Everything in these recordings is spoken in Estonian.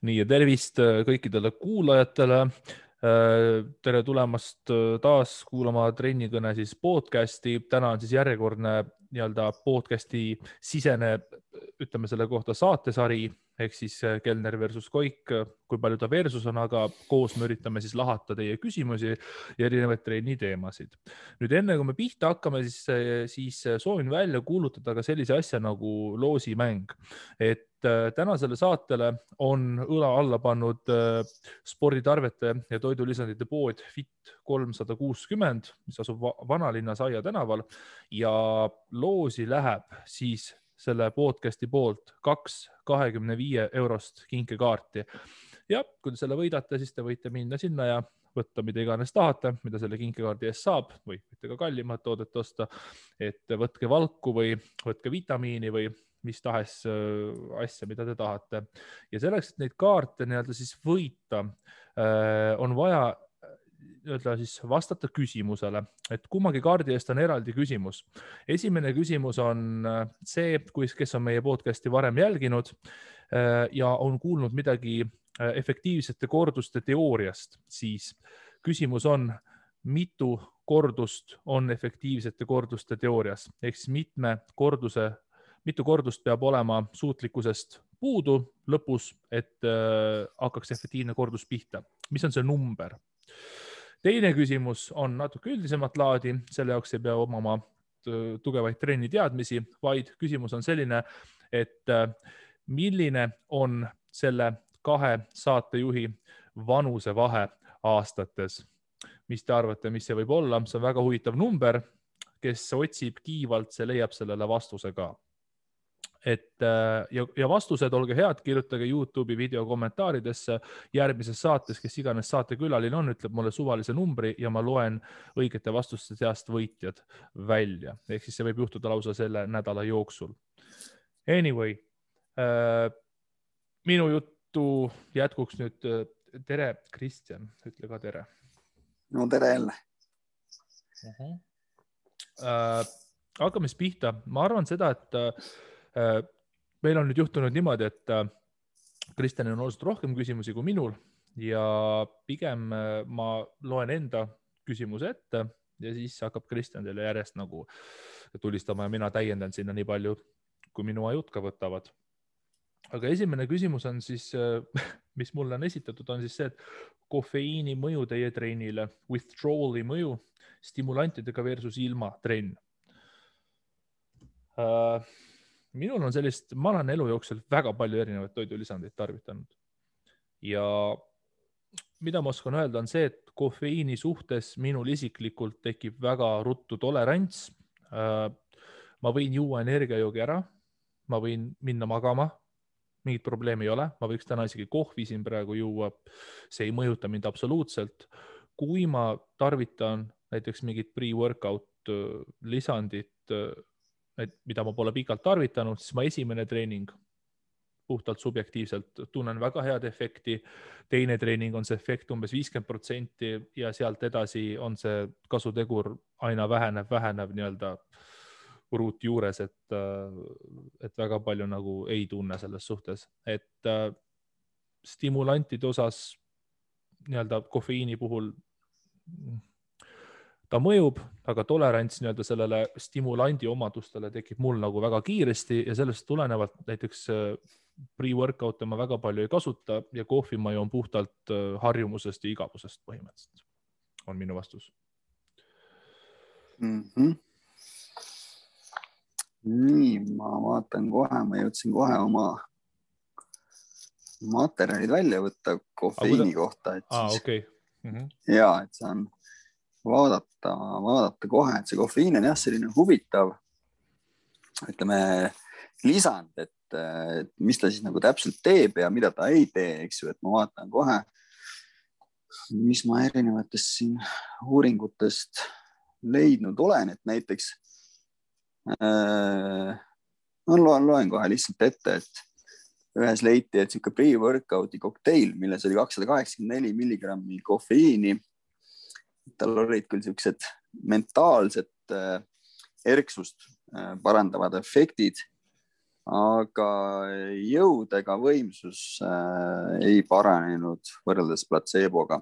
Nii ja tervist kõikidele kuulajatele. Tere tulemast taas kuulama Trennikõne siis podcasti. Täna on siis järjekordne podcasti sisene, ütleme selle kohta saatesari, ehk siis Kelner versus Koik, kui palju ta versus on, aga koos me üritame siis lahata teie küsimusi ja erinevaid trenni teemasid. Nüüd enne kui me pihta hakkame, siis soovin välja kuulutada ka sellise asja nagu loosimäng. Et tänasele saatele on õla alla pannud sporditarvete ja toidulisandite pood Fit 360, mis asub Vanalinnas Aia tänaval ja loosi läheb siis selle podcasti poolt 2 25 € kinkekaarti. Ja kui te selle võidate, siis te võite minna sinna ja võtta mida iganes tahate, mida selle kinkekaardi eest saab või võite ka kallimat toodet osta, et võtke valku või võtke vitamiini või mis tahes asja, mida te tahate. Ja selleks, et neid kaarte siis võita, on vaja siis vastata küsimusele, et kummagi kaardi eest on eraldi küsimus. Esimene küsimus on see, kes on meie podcasti varem jälginud ja on kuulnud midagi efektiivsete korduste teooriast, siis küsimus on, mitu kordust on efektiivsete korduste teoorias, ehk siis mitu kordust peab olema suutlikkusest puudu lõpus, et hakkaks efektiivne kordus pihta. Mis on see number? Teine küsimus on natuke üldisemat laadi, selle jaoks ei pea omama tugevaid trenni teadmisi, vaid küsimus on selline, et milline on selle 2 saatejuhi vanusevahe aastates. Mis te arvate, mis see võib olla? See on väga huvitav number, kes otsib kiivalt, see leiab sellele vastuse ka. Ja vastused, olge head, kirjutage YouTube'i video kommentaaridesse järgmises saates, kes iganes saatekülaline on, ütleb mulle suvalise numbri ja ma loen õigete vastuste seast võitjad välja. Ehk siis see võib juhtuda lausa selle nädala jooksul. Anyway, minu juttu jätkuks nüüd. Tere, Kristjan, ütle ka tere. No tere jälle. Hakkame siis pihta. Ma arvan seda, et meil on nüüd juhtunud niimoodi, et Kristjanil on olnud rohkem küsimusi kui minul ja pigem ma loen enda küsimuse ette ja siis hakkab Kristjan teile järjest nagu tulistama ja mina täiendan sinna nii palju, kui minu ajud ka võtavad. Aga esimene küsimus on siis, mis mulle on esitatud, on siis see, et kofeiini mõju teie trennile, withdrawali mõju stimulantidega versus ilma trenn. Minul on sellist, ma olen elu jooksul väga palju erinevaid toidulisandeid tarvitanud. Ja mida ma oskan öelda on see, et kofeiini suhtes minul isiklikult tekib väga ruttu tolerants. Ma võin juua energiajoogi ära, ma võin minna magama, mingit probleemi ei ole. Ma võiks täna isegi kohvi siin praegu juua, see ei mõjuta mind absoluutselt. Kui ma tarvitan näiteks mingit pre-workout lisandit, mida ma pole pikalt tarvitanud, siis ma esimene treening puhtalt subjektiivselt tunnen väga head efekti. Teine treening on see efekt umbes 50% ja sealt edasi on see kasutegur aina vähenev nii-öelda ruut juures, et väga palju nagu ei tunne selles suhtes. Et stimulantide osas nii-öelda kofeiini puhul ta mõjub, aga tolerants nii-öelda sellele stimulandi omadustele tekib mul nagu väga kiiresti ja sellest tulenevalt näiteks pre-workout ma väga palju ei kasuta ja kohvi ma joon puhtalt harjumusest ja igavusest põhimõtteliselt. On minu vastus. Nii, ma vaatan kohe, ma jõudsin kohe oma materjalid välja võtta kofeiini kohta. Okay. Ja, et saan vaadata kohe, et see kofeiin on jah selline huvitav, ütleme, lisand, et mis ta siis nagu täpselt teeb ja mida ta ei tee, eks ju, et ma vaatan kohe, mis ma erinevatest siin uuringutest leidnud olen, et näiteks loen kohe lihtsalt ette, et ühes leiti, et siuke pre-workouti kokteil, milles oli 284 milligrammi kofeiini. Tal olid küll siuksed mentaalsed erksust parandavad efektid, aga jõud ega võimsus ei paranenud võrreldes platseeboga.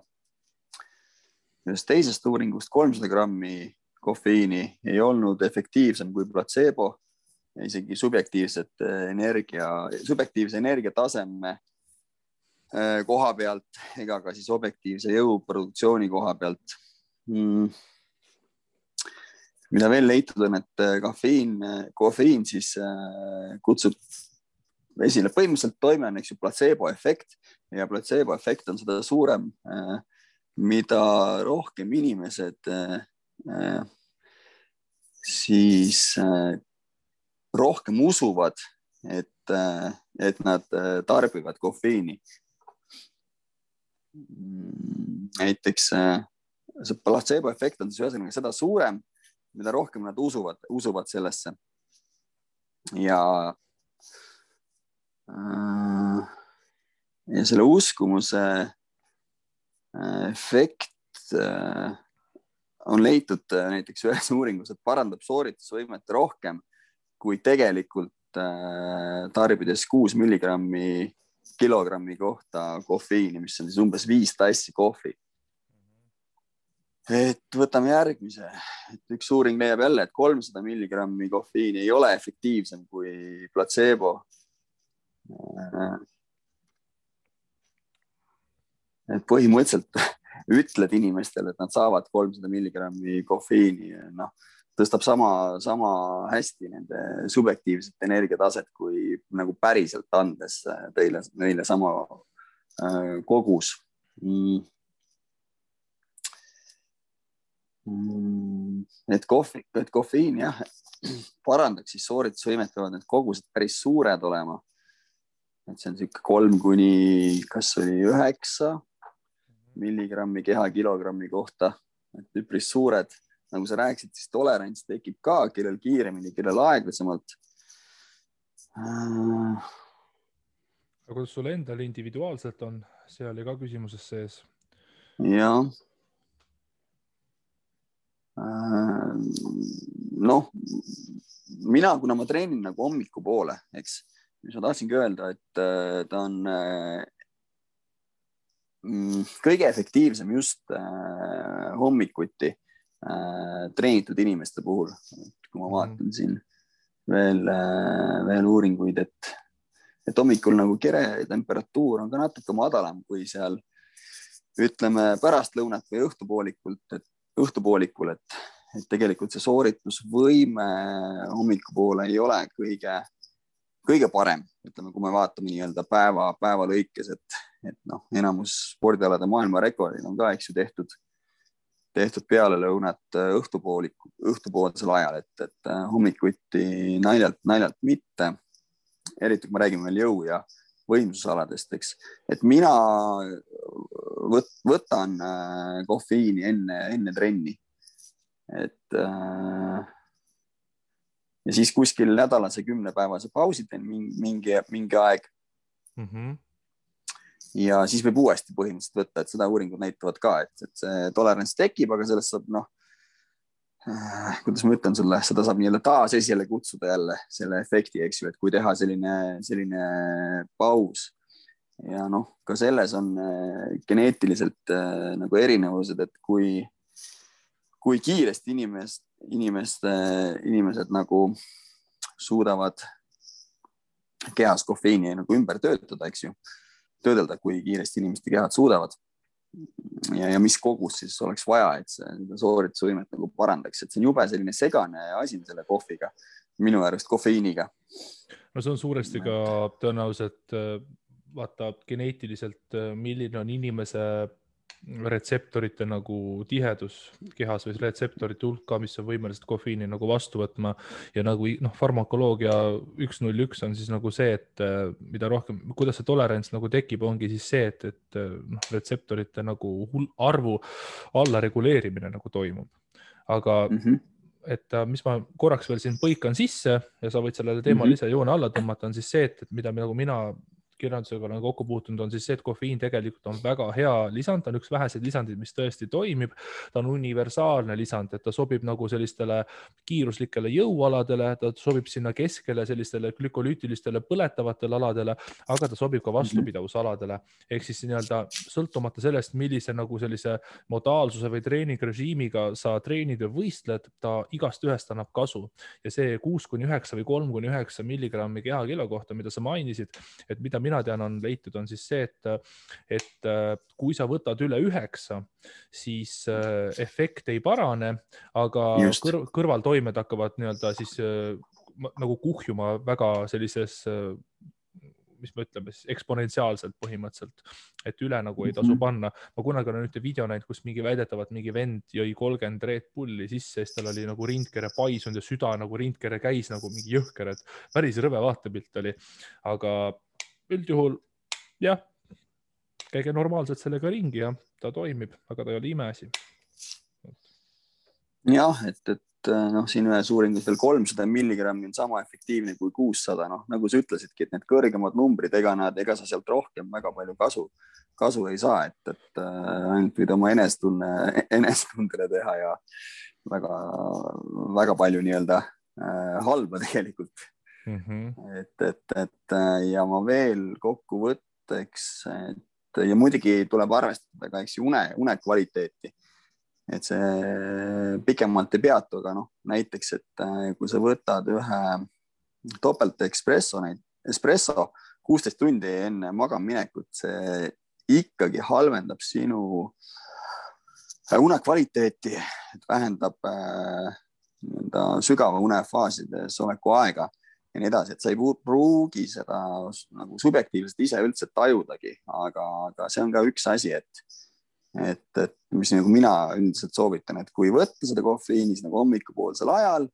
Ühest teisest uuringust 300 grammi kofeiini ei olnud efektiivsem kui platseebo, isegi subjektiivse energiataseme koha pealt ega ka siis objektiivse jõuproduktsiooni koha pealt. Mida veel leitud on, et kofeiin siis kutsub esile põhimõtteliselt toime on platseebo efekt ja platseebo efekt on seda suurem, mida rohkem inimesed siis rohkem usuvad, et nad tarbivad kofeiini. Näiteks see placebo efekt on siis ühesõnaga seda suurem, mida rohkem nad usuvad sellesse. Ja selle uskumuse efekt on leitud näiteks ühes uuringus, et parandab sooritusvõimet rohkem kui tegelikult tarbides 6 milligrammi kilogrammi kohta kofeiini, mis on siis umbes 5 tassi kohvi. Et võtame järgmise. Et üks uuring leiab jälle, et 300 milligrammi kofeiini ei ole efektiivsem kui placebo. Et põhimõtteliselt ütled inimestele, et nad saavad 300 milligrammi kofeiini, tõstab sama hästi nende subjektiivset energiataset, kui nagu päriselt andes neile sama kogus. Et kofeiin jah, parandaks siis sooritusvõimet, peavad need kogused päris suured olema. Et see on siuke 3 kuni kas oli 9 milligrammi kehakilogrammi kohta, et üpris suured. Nagu sa rääkisid, siis tolerants tekib ka, kellel kiiremini, kellel aeglasemalt. Aga kuidas sul endal individuaalselt on? See oli ka küsimuses sees. Jah. Kuna ma treenin nagu hommiku poole, eks, mis ma tahtsingi öelda, et ta on kõige efektiivsem just hommikuti treenitud inimeste puhul. Kui ma vaatan siin veel uuringuid, et hommikul nagu kere temperatuur on ka natuke madalam kui seal, ütleme, pärastlõunat või õhtupoolikul, et tegelikult see sooritusvõime hommikupoole ei ole kõige parem, ütleme, kui me vaatame nii-öelda päeva lõikes, et enamus spordialade maailmarekordid on ka, eks ju, tehtud peale lõunat õhtupoolsel ajal, et hommikuti naljalt mitte, eriti kui me räägime veel jõu- ja võimsusaladest, eks, et mina võtan kofeiini enne trenni, et ja siis kuskil nädalase 10-päevase pausi teen mingi aeg. Ja siis võib uuesti põhimõtteliselt võtta, et seda uuringud näitavad ka, et see tolerants tekib, aga sellest saab, kuidas ma ütlen sulle, seda saab nii-öelda taas esile kutsuda jälle selle efekti, eks ju, et kui teha selline paus. Ja ka selles on geneetiliselt nagu erinevused, et kui kiiresti inimesed nagu suudavad kehas kofeiini nagu ümber töötada, eks ju, töödelda, kui kiiresti inimeste kehad suudavad ja mis kogus siis oleks vaja, et see sooritusvõimet nagu parandaks, et see on jube selline segane asi selle kohviga, minu arust kofeiiniga. No see on suuresti ka tõenäoliselt vaata geneetiliselt, milline on inimese retseptorite nagu tihedus kehas või retseptorite hulka, mis on võimelised kofeiini nagu vastu võtma ja nagu farmakoloogia 101 on siis nagu see, et mida rohkem, kuidas see tolerants nagu tekib, ongi siis see, et retseptorite nagu arvu alla reguleerimine nagu toimub. Aga et mis ma korraks veel siin põikan sisse ja sa võid sellele teemale ise joone alla tõmmata, on siis see, et mida nagu mina kirjandusega olen kokku puutunud, on siis see, et kofeiin tegelikult on väga hea lisand, ta on üks väheseid lisandeid, mis tõesti toimib. Ta on universaalne lisand, et ta sobib nagu sellistele kiiruslikele jõualadele, ta sobib sinna keskele sellistele glükolüütilistele põletavatele aladele, aga ta sobib ka vastupidavusaladele. Ehk siis nii-öelda sõltumata sellest, millise nagu sellise modaalsuse või treeningrežiimiga sa treenid või võistled, ta igast ühest annab kasu. Ja see 6-9 või 3-9 milligrammi kehakilo kohta, mida sa mainisid, et mida mina tean, on leitud, on siis see, et kui sa võtad üle 9, siis efekt ei parane, aga kõrvaltoimed hakkavad nii-öelda siis nagu kuhjuma väga sellises, mis me ütleme, eksponentsiaalselt põhimõtteliselt, et üle nagu ei tasu panna. Ma kunagi olen ühte video näinud, kus väidetavalt mingi vend jõi 30 Red Bulli sisse, siis tal oli nagu rindkere paisunud ja süda nagu rindkere käis nagu mingi jõhker, et päris rõve vaatepilt oli. Aga üldjuhul, jah, käige normaalselt sellega ringi ja ta toimib, aga ta ei ole imeasi. Jah, et siin ühes uuringus veel 300 milligrammi on sama efektiivne kui 600. Nagu sa ütlesidki, et need kõrgemad numbrid, ega sa sealt rohkem väga palju kasu ei saa, et ainult võid oma enestundele teha ja väga, väga palju nii-öelda halba tegelikult. Ja ma veel kokkuvõtteks, ja muidugi tuleb arvestada ka une kvaliteeti. Et see pikemalt ei peatu, aga näiteks, et kui sa võtad ühe topelt espresso 16 tundi enne magamaminekut, see ikkagi halvendab sinu une kvaliteeti, et vähendab sügava unefaasides oleku aega ja nii edasi, et sa ei pruugi seda nagu subjektiivselt ise üldse tajudagi, aga see on ka üks asi, et mis nagu mina üldiselt soovitan, et kui võtta seda kofeiinis nagu hommikupoolsel ajal,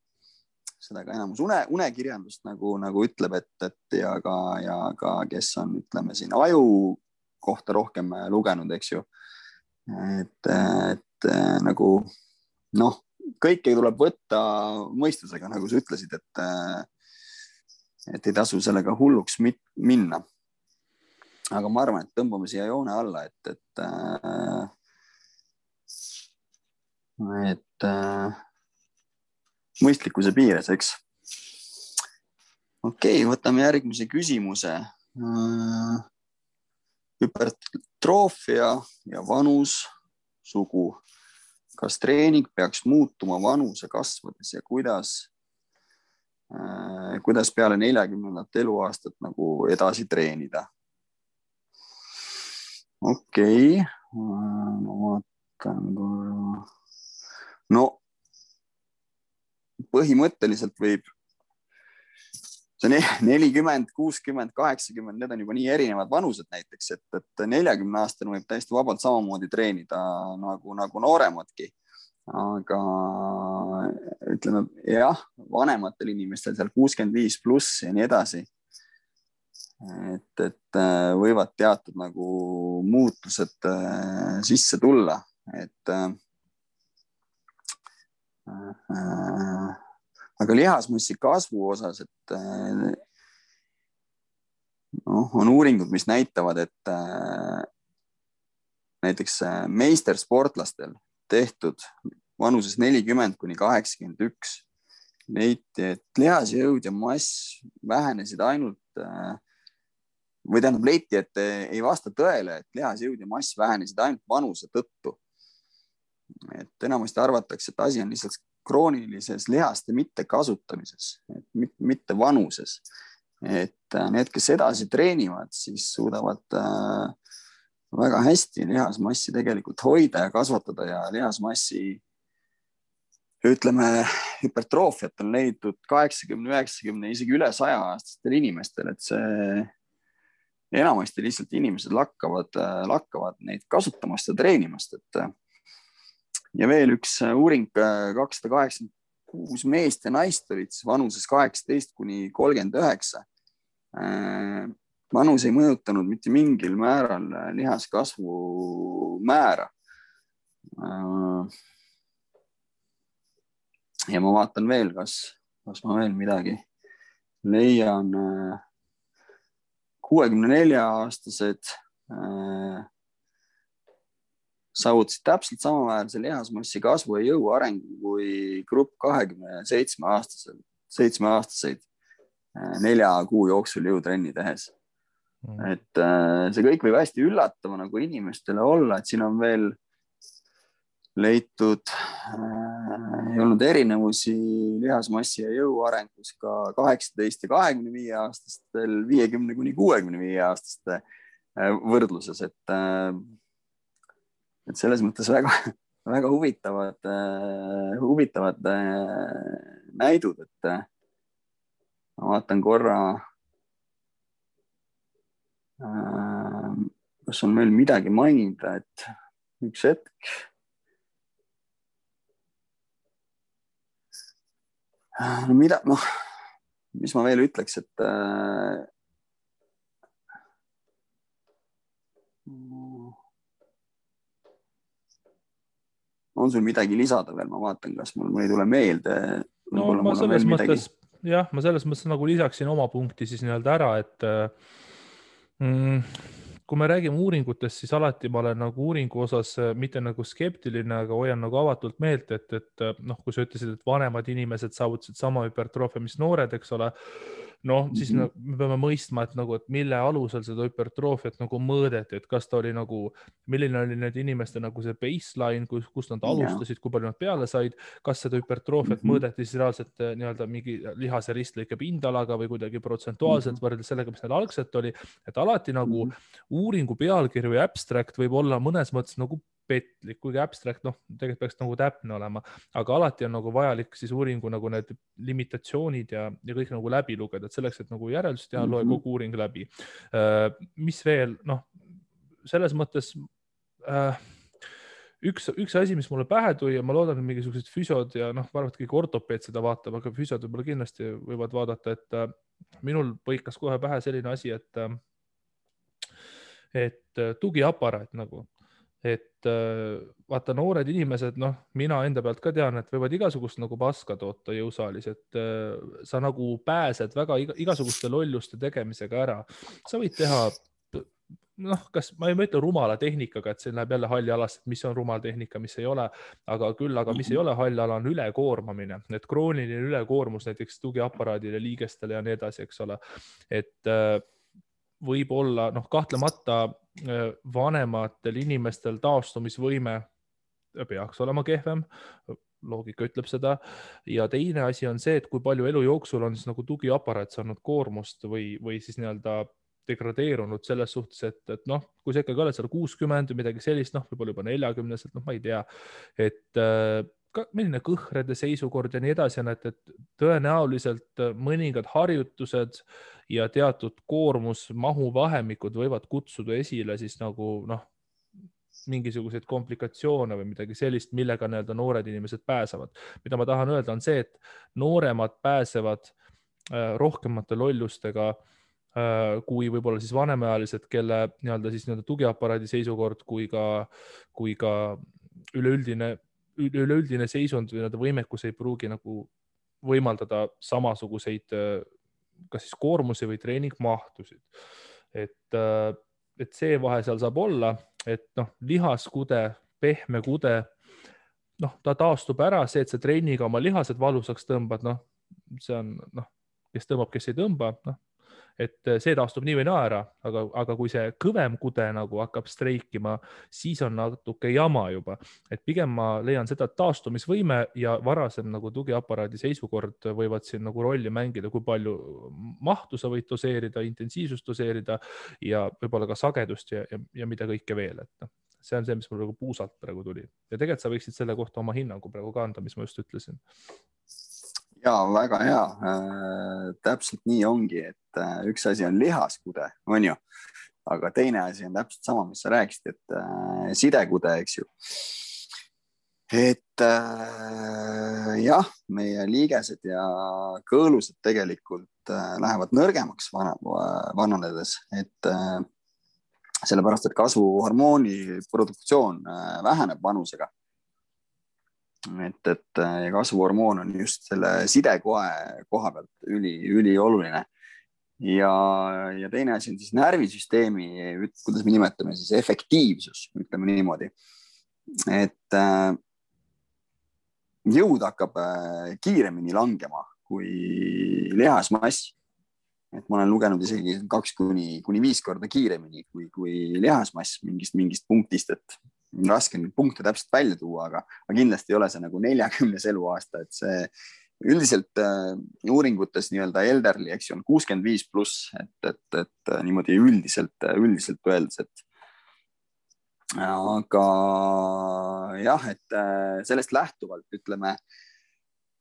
seda ka enamus unekirjandust nagu ütleb, et ja ka kes on, ütleme siin aju kohta rohkem lugenud, eks ju, et nagu kõike tuleb võtta mõistusega, nagu sa ütlesid, et ei tasu sellega hulluks minna. Aga ma arvan, et tõmbame siia joone alla, et mõistlikkuse piires, eks. Okei, võtame järgmise küsimuse. Hüpertroofia ja vanus, sugu. Kas treening peaks muutuma vanuse kasvades ja kuidas peale 40. eluaastat nagu edasi treenida? Okei, ma vaatan korra. Põhimõtteliselt võib see 40, 60, 80, need on juba nii erinevad vanused näiteks, et 40-aastane võib täiesti vabalt samamoodi treenida nagu nooremadki. Aga ütleme, jah, vanematel inimestel seal 65 pluss ja nii edasi, et võivad teatud nagu muutused sisse tulla, aga lihasmassi kasvu osas, et on uuringud, mis näitavad, et näiteks meistersportlastel tehtud vanuses 40-81 leiti, et lihasjõud ja mass vähenesid ainult või tähendab leiti, et ei vasta tõele, et lihasjõud ja mass vähenesid ainult vanuse tõttu. Et enamasti arvatakse, et asi on lihtsalt kroonilises lihaste mitte kasutamises, mitte vanuses. Et need, kes edasi treenivad, siis suudavad väga hästi lihasmassi tegelikult hoida ja kasvatada ja lihasmassi, ütleme, hüpertroofiat on leidnud 80, 90, isegi üle 100-aastastel inimestel, et see enamasti lihtsalt inimesed lakkavad neid kasutamast ja treenimast. Ja veel üks uuring, 286 meest ja naist olid vanuses 18-39. Vanus ei mõjutanud mitte mingil määral lihaskasvu määra. Ja ma vaatan veel, kas ma veel midagi leian. 64-aastased saavutasid täpselt samaväärse lihasmassi kasvu ja jõu arengu kui grupp 27-aastaseid 4 kuu jooksul jõutrenni tehes. Et see kõik võib hästi üllatava nagu inimestele olla, et siin on veel leitud, ei olnud erinevusi lihasmassi ja jõu arengus ka 18 ja 25 aastastel 50 kuni 65 aastaste võrdluses, et selles mõttes väga huvitavad näidud, et ma vaatan korra, kas on meil midagi mainida, et üks hetk. Mis ma veel ütleks, et on sul midagi lisada veel, ma vaatan, kas mul ei tule meelde. No ma selles mõttes, ma selles mõttes nagu lisaksin oma punkti siis nii-öelda ära, et kui me räägime uuringutest, siis alati ma olen nagu uuringu osas mitte nagu skeptiline, aga hoian nagu avatult meelt, et kui sa ütlesid, et vanemad inimesed saavutasid sama hüpertroofia, mis noored, eks ole, siis me peame mõistma, et mille alusel seda hüpertroofiat nagu mõõdeti, et kas ta oli nagu, milline oli need inimeste nagu see baseline, kust nad alustasid, kui palju nad peale said, kas seda hüpertroofiat mõõdeti siis reaalselt nii-öelda mingi lihase ristlõike pindalaga või kuidagi protsentuaalselt võrreldes sellega, mis neil algselt oli, et alati nagu uuringu pealkiri või abstract võib olla mõnes mõttes nagu petlik, kuigi abstract, tegelikult peaks nagu täpne olema, aga alati on nagu vajalik siis uuringu nagu need limitatsioonid ja kõik nagu läbi lugeda, et selleks, et nagu järeldust teha, loe kogu uuring läbi. Mis veel, selles mõttes üks asi, mis mulle pähe tuli ja ma loodan, et mingisugused füsiod ja arvad kõik ortopeed seda vaatab, aga füsiod võib-olla kindlasti võivad vaadata, et minul põikas kohe pähe selline asi, et tugiaparaat nagu. Et vaata noored inimesed, mina enda pealt ka tean, et võivad igasugust nagu paska toota jõusaalis, et sa nagu pääsed väga igasuguste lolluste tegemisega ära. Sa võid teha, kas ma ei mõtle rumala tehnikaga, et see läheb jälle halli alasse, et mis on rumal tehnika, mis ei ole, aga mis ei ole halli ala, on ülekoormamine, et krooniline ülekoormus näiteks tugiaparaadile, liigestele ja nii edasi, eks ole, et võib olla, kahtlemata vanematel inimestel taastumisvõime peaks olema kehvem, loogika ütleb seda, ja teine asi on see, et kui palju elu jooksul on siis nagu tugiaparaat saanud koormust või siis nii-öelda degradeerunud selles suhtes, et kui sa ikkagi oled seal 60 või midagi sellist, võib-olla juba 40-selt, ma ei tea, et milline kõhrede seisukord ja nii edasi on, et tõenäoliselt mõningad harjutused ja teatud koormusmahu vahemikud võivad kutsuda esile siis nagu mingisuguseid komplikatsioone või midagi sellist, millega nii-öelda noored inimesed pääsevad. Mida ma tahan öelda on see, et nooremad pääsevad rohkemate lollustega kui võib-olla siis vanemaealised, kelle nii-öelda tugiaparaadi seisukord kui ka üleüldine seisund või võimekus ei pruugi nagu võimaldada samasuguseid kas siis koormusi või treeningmahtusid. Et see vahe seal saab olla, et lihaskude, pehme kude, ta taastub ära, see, et see treeniga oma lihased valusaks tõmbad, see on, kes tõmbab, kes ei tõmba, et see taastub nii või naa ära, aga kui see kõvem kude nagu hakkab streikima, siis on natuke jama juba. Et pigem ma leian seda, et taastumisvõime ja varasem nagu tugiaparaadi seisukord võivad siin nagu rolli mängida, kui palju mahtu sa võid doseerida, intensiivsust doseerida ja võib-olla ka sagedust ja mida kõike veel. Et see on see, mis mul puusalt praegu tuli. Ja tegelikult sa võiksid selle kohta oma hinnangu praegu ka anda, mis ma just ütlesin. Jaa, väga hea. Täpselt nii ongi, et üks asi on lihaskude, on ju, aga teine asi on täpselt sama, mis sa rääkisid, et sidekude, eks ju. Et jah, meie liigesed ja kõõlused tegelikult lähevad nõrgemaks vananedes, et sellepärast, et kasvuhormooni produktsioon väheneb vanusega. Et kasvuhormoon on just selle sidekoe koha pealt ülioluline. ja teine asi on siis närvisüsteemi, kuidas me nimetame siis efektiivsus, ütleme niimoodi, et jõud hakkab kiiremini langema kui lihasmass. Et ma olen lugenud isegi 2–5 korda kiiremini kui lihasmass mingist punktist, et raske neid punkte täpselt välja tuua, aga kindlasti ei ole see nagu 40 eluaasta, et see üldiselt uuringutes nii-öelda elderly, eks ju, on 65+, et niimoodi üldiselt öeldes, et aga jah, et sellest lähtuvalt ütleme,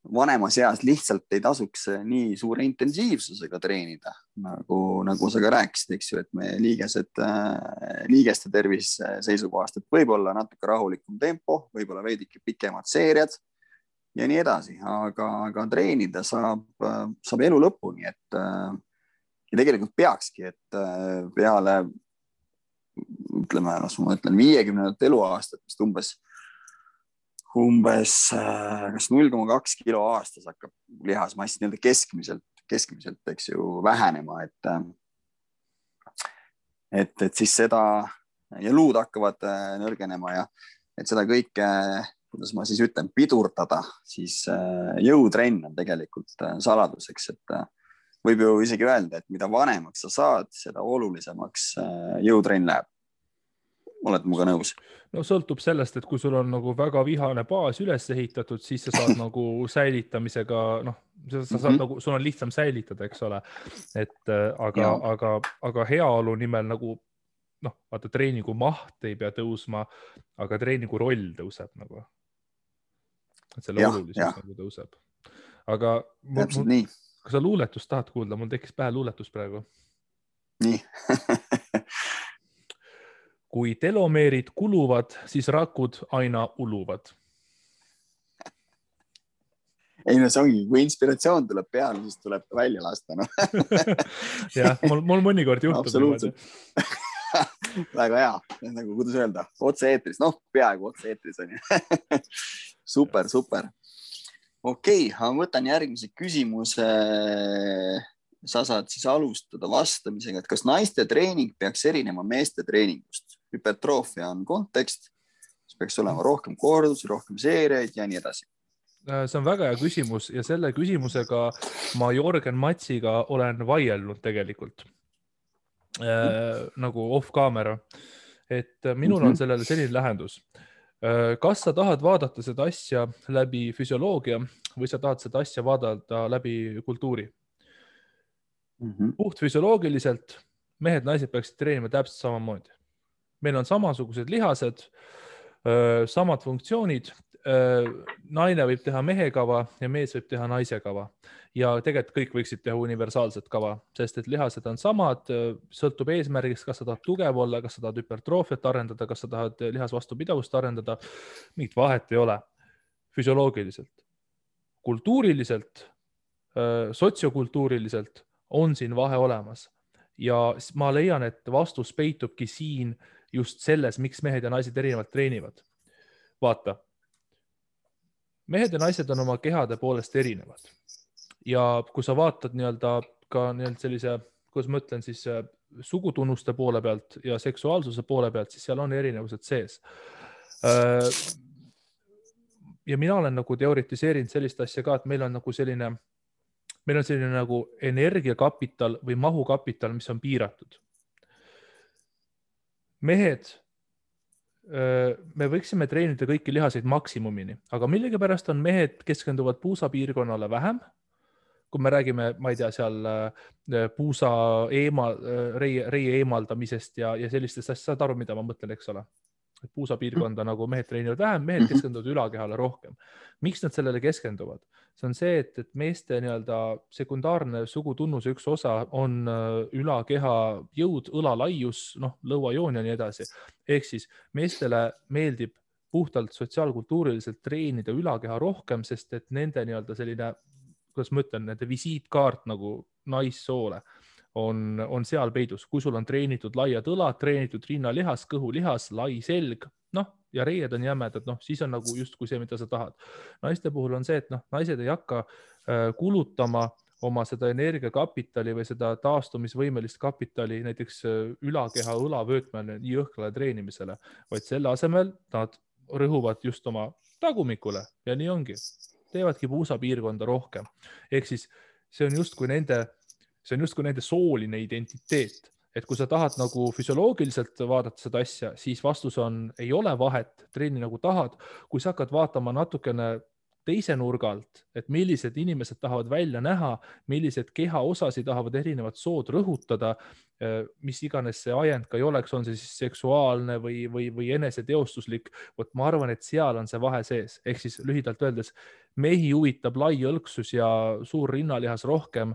vanemas eas lihtsalt ei tasuks nii suure intensiivsusega treenida, nagu sa ka rääkisid, eks ju, et me liigeste tervise seisukohast, et võib-olla natuke rahulikum tempo, võib-olla veidike pikemad seeriad ja nii edasi, aga treenida saab elu lõpuni, et ja tegelikult peakski, et peale ütleme, ma ütlen 50 eluaastat, vist umbes kas 0,2 kilo aastas hakkab lihasmass nii-öelda keskmiselt, eks ju, vähenema, et siis seda ja luud hakkavad nõrgenema ja et seda kõike, kuidas ma siis ütlen, pidurdada, siis jõutrenn on tegelikult saladuseks, et võib ju isegi öelda, et mida vanemaks sa saad, seda olulisemaks jõutrenn läheb. Oled muga nõus? No sõltub sellest, et kui sul on nagu väga vihane baas üles ehitatud, siis sa saad nagu säilitamisega, sa saad nagu, sul on lihtsam säilitada, eks ole. Et aga heaolu nimel nagu, vaata treeningu maht ei pea tõusma, aga treeningu roll tõuseb nagu. Et selle olulisus nagu tõuseb. Aga kui sa luuletust tahad kuulda, mul tekkis pähe luuletus praegu. Nii. Kui telomeerid kuluvad, siis rakud aina uluvad. Ei, no see ongi, kui inspiratsioon tuleb peale, siis tuleb välja lasta. No. Jah, mul mõnikord juhtub. Absoluutselt. Väga hea. Nagu, kuidas öelda, otse eetris. Peaaegu otse eetris on ju. Super. Okei, ma võtan järgmise küsimuse. Sa saad siis alustada vastamisega, et kas naiste treening peaks erinema meeste treeningust? Hüpertroofia on kontekst, siis peaks olema rohkem kordusi, rohkem seeriaid ja nii edasi. See on väga hea küsimus ja selle küsimusega ma Jorgen Matsiga olen vaielnud tegelikult nagu off camera, et minul on sellele selline lähendus. Kas sa tahad vaadata seda asja läbi füsioloogia või sa tahad seda asja vaadata läbi kultuuri? Puht füsioloogiliselt mehed, naised peaksid treenima täpselt samamoodi. Meil on samasugused lihased, samad funktsioonid. Naine võib teha mehe kava ja mees võib teha naise kava. Ja tegelikult kõik võiksid teha universaalset kava, sest et lihased on samad, sõltub eesmärgist, kas sa tahad tugev olla, kas sa tahad hüpertroofiat arendada, kas sa tahad lihasvastupidavust arendada. Mingit vahet ei ole füsioloogiliselt. Kultuuriliselt, sotsiokultuuriliselt on siin vahe olemas ja ma leian, et vastus peitubki siin just selles, miks mehed ja naised erinevalt treenivad. Vaata, mehed ja naised on oma kehade poolest erinevad ja kui sa vaatad ka sellise, kuidas ma ütlen siis sugutunnuste poole pealt ja seksuaalsuse poole pealt, siis seal on erinevused sees. Ja mina olen nagu teoritiseerinud sellist asja ka, et meil on selline nagu energiakapital või mahukapital, mis on piiratud. Mehed, me võiksime treenida kõiki lihaseid maksimumini, aga millegipärast on mehed keskenduvad puusapiirkonnale vähem. Kui me räägime, ma ei tea, seal puusa reie eemaldamisest ja sellistest asjast, saad aru, mida ma mõtlen, eks ole? Puusapiirkonda nagu mehed treenivad vähem, mehed keskenduvad ülakehale rohkem. Miks nad sellele keskenduvad? See on see, et meeste sekundaarne sugutunnuse üks osa on ülakeha jõud, õlalaius, lõuajoon ja nii edasi. Ehk siis meestele meeldib puhtalt sotsiaalkultuuriliselt treenida ülakeha rohkem, sest et nende selline, kuidas ma ütlen, nende visiitkaart nagu naissoole on seal peidus. Kui sul on treenitud laiad õlad, treenitud rinnalihas, kõhulihas, lai selg, ja reied on jämedad, siis on nagu justkui see, mida sa tahad. Naiste puhul on see, et naised ei hakka kulutama oma seda energiakapitali või seda taastumisvõimelist kapitali näiteks ülakeha õlavöötmele nii jõhkrale treenimisele, vaid selle asemel nad rõhuvad just oma tagumikule ja nii ongi. Teevadki puusapiirkonda rohkem. Ehk siis see on justkui nende sooline identiteet. Et kui sa tahad nagu füsioloogiliselt vaadata seda asja, siis vastus on, ei ole vahet, treeni nagu tahad. Kui sa hakkad vaatama natukene teise nurga alt, et millised inimesed tahavad välja näha, millised kehaosasid tahavad erinevad sood rõhutada, mis iganes see ajend ka ei oleks, on see siis seksuaalne või eneseteostuslik. Vot ma arvan, et seal on see vahe sees. Ehk siis lühidalt öeldes, mehi huvitab lai õlksus ja suur rinnalihas rohkem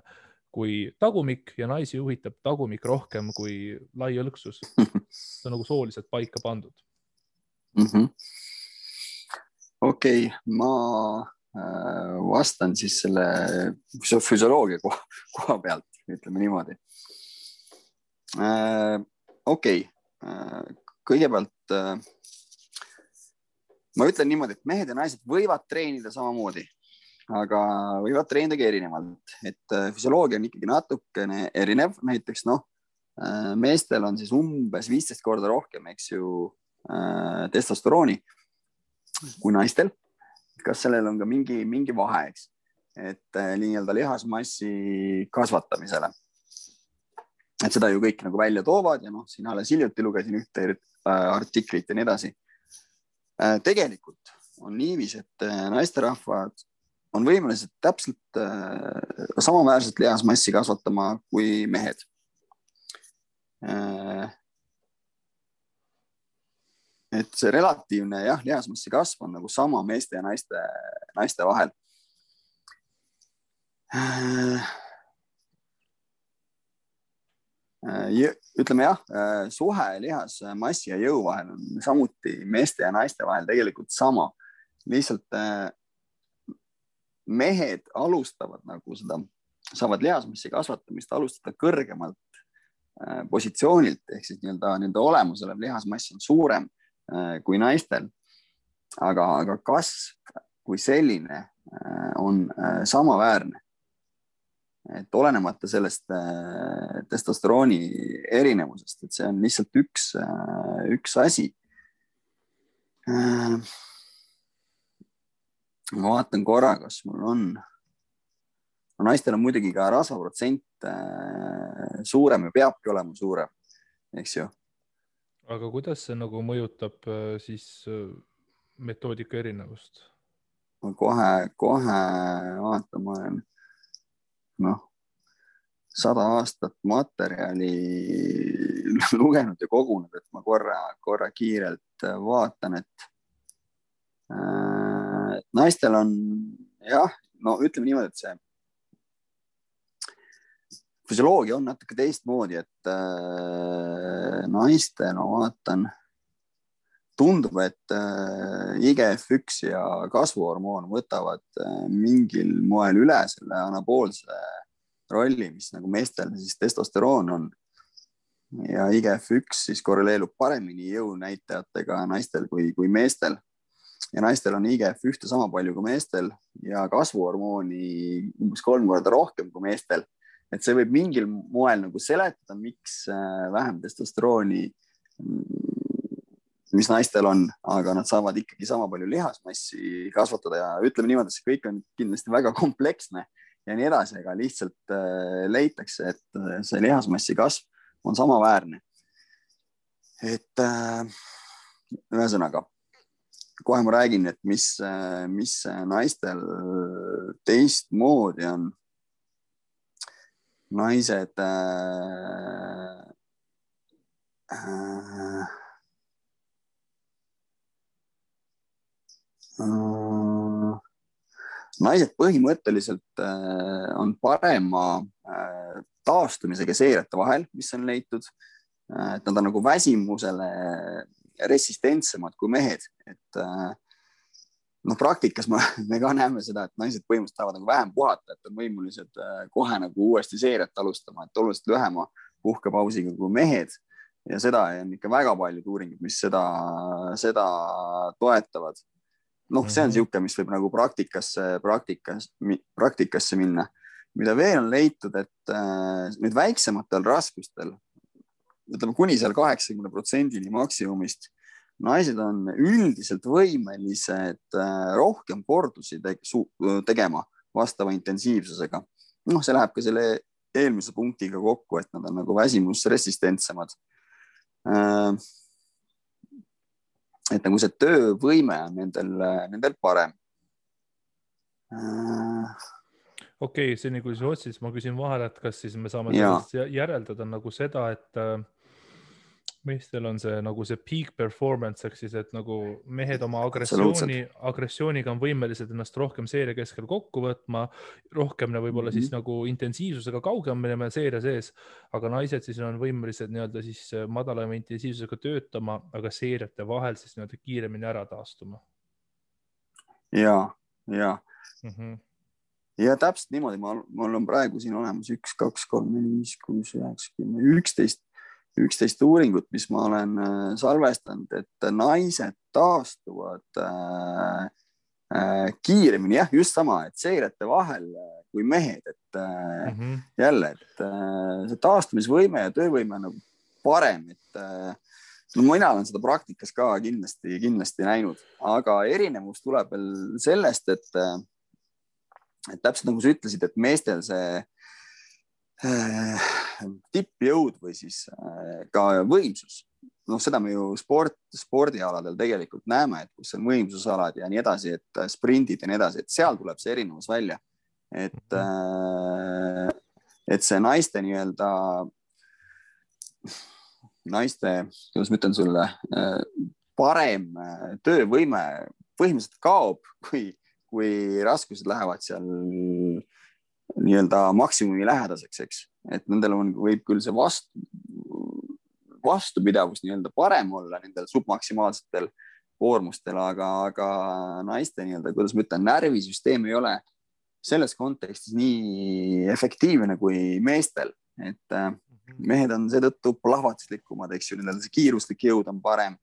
kui tagumik ja naisi huvitab tagumik rohkem kui lai õlksus. See on nagu sooliselt paika pandud. Okei, ma vastan siis selle füsioloogia koha pealt, ütleme niimoodi. Okei, kõigepealt ma ütlen niimoodi, et mehed ja naised võivad treenida samamoodi, aga võivad treenida erinevalt, et füsioloogia on ikkagi natukene erinev. Näiteks meestel on siis umbes 15 korda rohkem, eks ju, testosterooni kui naistel. Kas sellel on ka mingi vahe, eks, et nii-öelda lihasmassi kasvatamisele. Et seda ju kõik nagu välja toovad ja siin alles hiljuti lugesin ühte artiklit ja nii edasi. Tegelikult on niivis, et naisterahvad on võimelised täpselt samaväärselt lihasmassi kasvatama kui mehed. Et see relatiivne lihasmassi kasv on nagu sama meeste ja naiste vahel. Ütleme suhe lihasmassi ja jõu vahel on samuti meeste ja naiste vahel tegelikult sama. Lihtsalt mehed alustavad nagu seda, saavad lihasmassi kasvatamist alustada kõrgemalt positsioonilt, ehk siis nende olemusele lihasmass on suurem kui naistel, aga kasv kui selline on samaväärne. Et olenemata sellest testosterooni erinevusest, et see on lihtsalt üks asi. Ma vaatan korra, kas mul on. Naistel on muidugi ka rasvaprotsent suurem ja peabki olema suurem, eks ju. Aga kuidas see nagu mõjutab siis metoodika erinevust? Ma kohe vaatama 100 aastat materjali lugenud ja kogunud, et ma korra kiirelt vaatan, et naistel on ütleme niimoodi, et see füsioloogia on natuke teistmoodi, et naistel, ma vaatan, tundub, et IGF-1 ja kasvuhormoon võtavad mingil moel üle selle anaboolse rolli, mis nagu meestel siis testosteroon on. Ja IGF-1 siis korreleerub paremini jõunäitajatega naistel kui meestel. Ja naistel on IGF-1 sama palju kui meestel ja kasvuhormooni umbes 3 korda rohkem kui meestel. Et see võib mingil moel nagu seletada, miks vähem testosterooni, mis naistel on, aga nad saavad ikkagi sama palju lihasmassi kasvatada ja ütleme niimoodi, et see kõik on kindlasti väga kompleksne ja nii edasi, aga lihtsalt leitakse, et see lihasmassi kasv on samaväärne. Et ühesõnaga, kohe ma räägin, et mis naistel teistmoodi on. Naised põhimõtteliselt on parema taastumisega seirete vahel, mis on leitud, et nad on nagu väsimusele resistentsemad kui mehed, et praktikas me ka näeme seda, et naised põhimõtteliselt tahavad nagu vähem puhata, et on võimulised kohe nagu uuesti seeriat alustama, et oluliselt lühema puhkepausiga kui mehed ja seda on ikka väga paljud uuringud, mis seda toetavad. See on siuke, mis võib nagu praktikasse minna mida veel on leitud, et nüüd väiksematel raskustel, ütleme kuni seal 80% maksimumist, naised on üldiselt võimelised rohkem kordusi tegema vastava intensiivsusega. See läheb ka selle eelmise punktiga kokku, et nad on nagu väsimusresistentsemad. Et nagu see töövõime on nendel parem. Okei, see kui sa otsid, ma küsin vahele, et kas siis me saame sellest järeldada nagu seda, et meestel on see nagu see peak performance, ehk siis, et nagu mehed oma agressiooniga on võimelised ennast rohkem seeria keskel kokku võtma, rohkem võib-olla siis nagu intensiivsusega kaugemale seeria sees, aga naised siis on võimelised nii-öelda siis madalama intensiivsusega töötama, aga seeriate vahel siis nii-öelda kiiremini ära taastuma. Ja täpselt niimoodi, mul on praegu siin olemas 1, 2, 3, 4, 5, 6, 9, 10, 11 uuringut, mis ma olen salvestanud, et naised taastuvad kiiremini, just sama, et seirete vahel kui mehed, et jälle, et see taastumisvõime ja töövõime on nagu parem, et mina olen seda praktikas ka kindlasti näinud, aga erinevus tuleb veel sellest, et täpselt nagu sa ütlesid, et meestel see tippjõud või siis ka võimsus. Seda me ju spordialadel tegelikult näeme, et kus on võimsusalad ja nii edasi, et sprindid ja nii edasi, et seal tuleb see erinevus välja. Et see naiste nii-öelda, kuidas ma ütlen sulle, parem töövõime põhimõtteliselt kaob, kui raskused lähevad seal nii-öelda maksimumi lähedaseks, eks. Et nendel võib küll see vastupidavus nii-öelda parem olla nendel submaksimaalsetel koormustel, aga naiste nii-öelda, kuidas ma ütlen, närvisüsteem ei ole selles kontekstis nii efektiivne kui meestel. Et mehed on seetõttu plahvatuslikumad, eks ju, nendel see kiiruslik jõud on parem.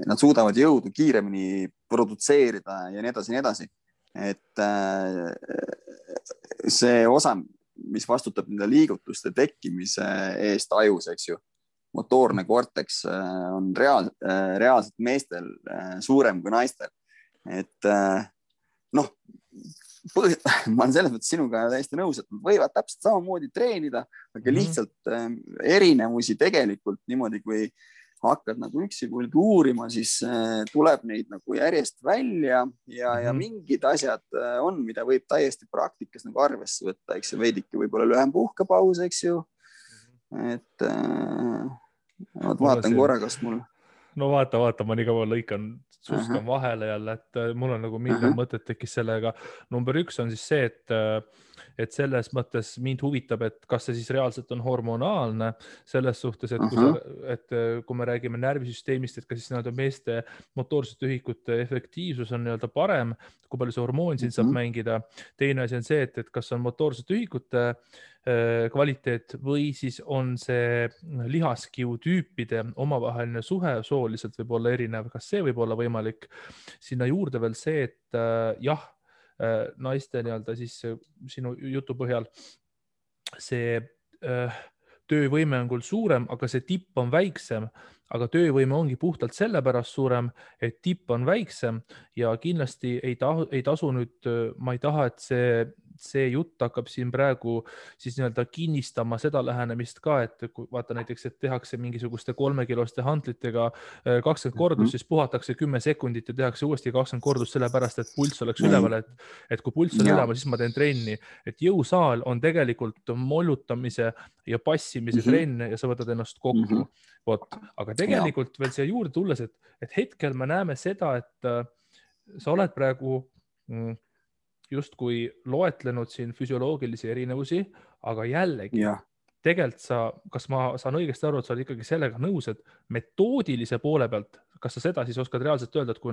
Nad suudavad jõudu kiiremini produtseerida ja nii edasi. Et see osa, mis vastutab nende liigutuste tekkimise eest ajus, eks ju, motoorne korteks on reaalselt meestel suurem kui naistel. Et ma olen selles mõttes sinuga täiesti nõus, et nad võivad täpselt samamoodi treenida, aga lihtsalt erinevusi tegelikult niimoodi, kui hakkad nagu üksipulgi uurima, siis tuleb neid nagu järjest välja ja mingid asjad on, mida võib täiesti praktikas nagu arvesse võtta, eks ju, veidike võib-olla lühem puhkepaus, eks ju. Et vaatan korra, kas mul... No vaata, ma nii kaua lõikan, suskan vahele jälle, et mul on nagu miljon mõtet tekkis sellega. Number 1 on siis see, et selles mõttes mind huvitab, et kas see siis reaalselt on hormonaalne selles suhtes, et kui me räägime närvisüsteemist, et kas siis nii-öelda meeste motoorsete ühikute efektiivsus on nii-öelda parem, kui palju see hormoon siin saab mängida. Teine asi on see, et kas on motoorsete ühikute kvaliteet või siis on see lihaskiu tüüpide omavaheline suhe sooliselt võib olla erinev, kas see võib olla võimalik. Sinna juurde veel see, et naiste nii-öelda siis sinu jutu põhjal see töövõime on küll suurem, aga see tipp on väiksem, aga töövõime ongi puhtalt sellepärast suurem, et tipp on väiksem ja kindlasti ei tasu nüüd, ma ei taha, et see jutt hakkab siin praegu siis nii-öelda kinnistama seda lähenemist ka, et kui vaata näiteks, et tehakse mingisuguste 3-kiloste hantlitega 20 kordust, siis puhatakse 10 sekundit ja tehakse uuesti 20 kordust sellepärast, et pulss oleks üleval, et kui pulss on üleval, siis ma teen trenni. Et jõusaal on tegelikult mollutamise ja passimise trenn ja sa võtad ennast kokku. Aga tegelikult veel siia juurde tulles, et hetkel me näeme seda, et sa oled praegu justkui loetlenud siin füsioloogilisi erinevusi, aga jällegi, tegelikult kas ma saan õigesti aru, et sa oled ikkagi sellega nõus, et metoodilise poole pealt, kas sa seda siis oskad reaalselt öelda, et kui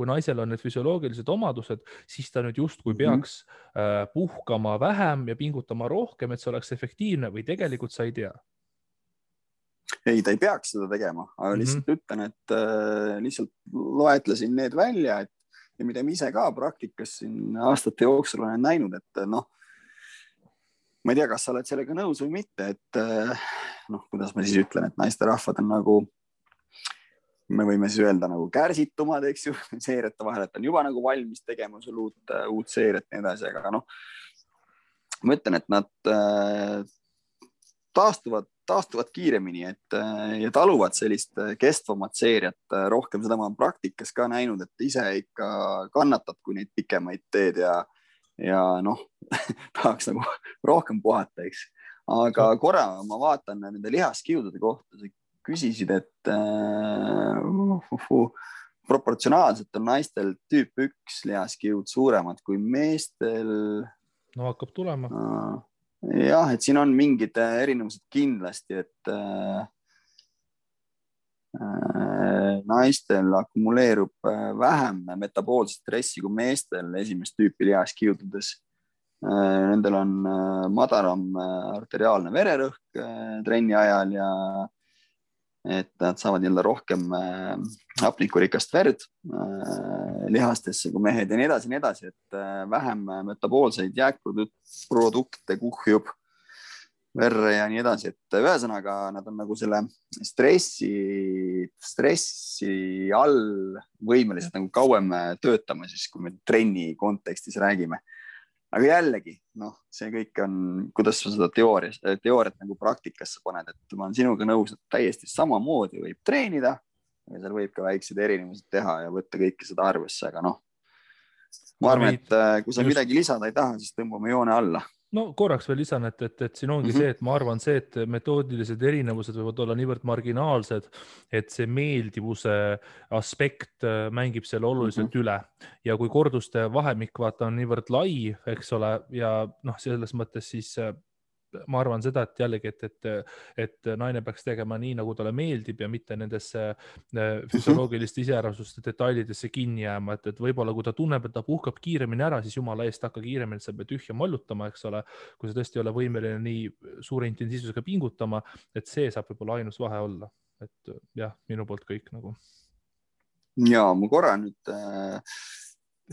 naisel on need füsioloogilised omadused, siis ta nüüd justkui peaks puhkama vähem ja pingutama rohkem, et see oleks efektiivne või tegelikult sa ei tea? Ei, ta ei peaks seda tegema, aga lihtsalt ütlen, et lihtsalt loetlesin need välja, ja mida ma ise ka praktikas siin aastate jooksul olen näinud, et noh, ma ei tea, kas sa oled sellega nõus või mitte, et noh, kuidas ma siis ütlen, et naisterahvad on nagu, me võime siis öelda nagu kärsitumad, eks ju, seeriate vahel, et on juba nagu valmis tegema sul uut seeriat ja nii edasi, aga noh, ma ütlen, et nad taastuvad kiiremini, ja taluvad sellist kestvamat seeriat rohkem. Seda ma olen praktikas ka näinud, et ise ikka kannatad, kui neid pikemaid teed ja noh, tahaks nagu rohkem puhata, eks. Aga korra ma vaatan nende lihaskiudude kohta, sa küsisid, et proportsionaalselt on naistel tüüp 1 lihaskiud suuremad kui meestel. No hakkab tulema. Jah, et siin on mingid erinevused kindlasti, et naistel akumuleerub vähem metaboolset stressi kui meestel esimest tüüpi lihaskiududes. Nendel on madalam arteriaalne vererõhk trenni ajal ja et nad saavad jälle rohkem hapnikurikast verd lihastesse kui mehed ja nii edasi, et vähem metaboolseid jääkprodukte kuhjub verre ja nii edasi, et ühesõnaga nad on nagu selle stressi all võimelised nagu kauem töötama siis, kui me trenni kontekstis räägime. Aga jällegi, noh, see kõik on, kuidas sa seda teooriat nagu praktikasse paned, et ma olen sinuga nõus, et täiesti samamoodi võib treenida ja seal võib ka väikseid erinevused teha ja võtta kõike seda arvesse, aga noh, ma arvan, et kui sa midagi lisada ei taha, siis tõmbame joone alla. No korraks veel lisan, et siin ongi see, et ma arvan see, et metoodilised erinevused võivad olla niivõrd marginaalsed, et see meeldivuse aspekt mängib selle oluliselt üle. Ja kui korduste vahemik vaata on niivõrd lai, eks ole, ja noh, selles mõttes siis ma arvan seda, et jällegi, et naine peaks tegema nii, nagu talle meeldib ja mitte nendesse füsioloogiliste iseärasuste detailidesse kinni jääma, et võib-olla kui ta tunneb, et ta puhkab kiiremini ära, siis jumala eest hakka kiiremini, et sa pead tühja mollutama, eks ole, kui sa tõesti ei ole võimeline nii suure intensiivsusega pingutama, et see saab võib-olla ainus vahe olla, et jah, minu poolt kõik nagu. Ja ma korra nüüd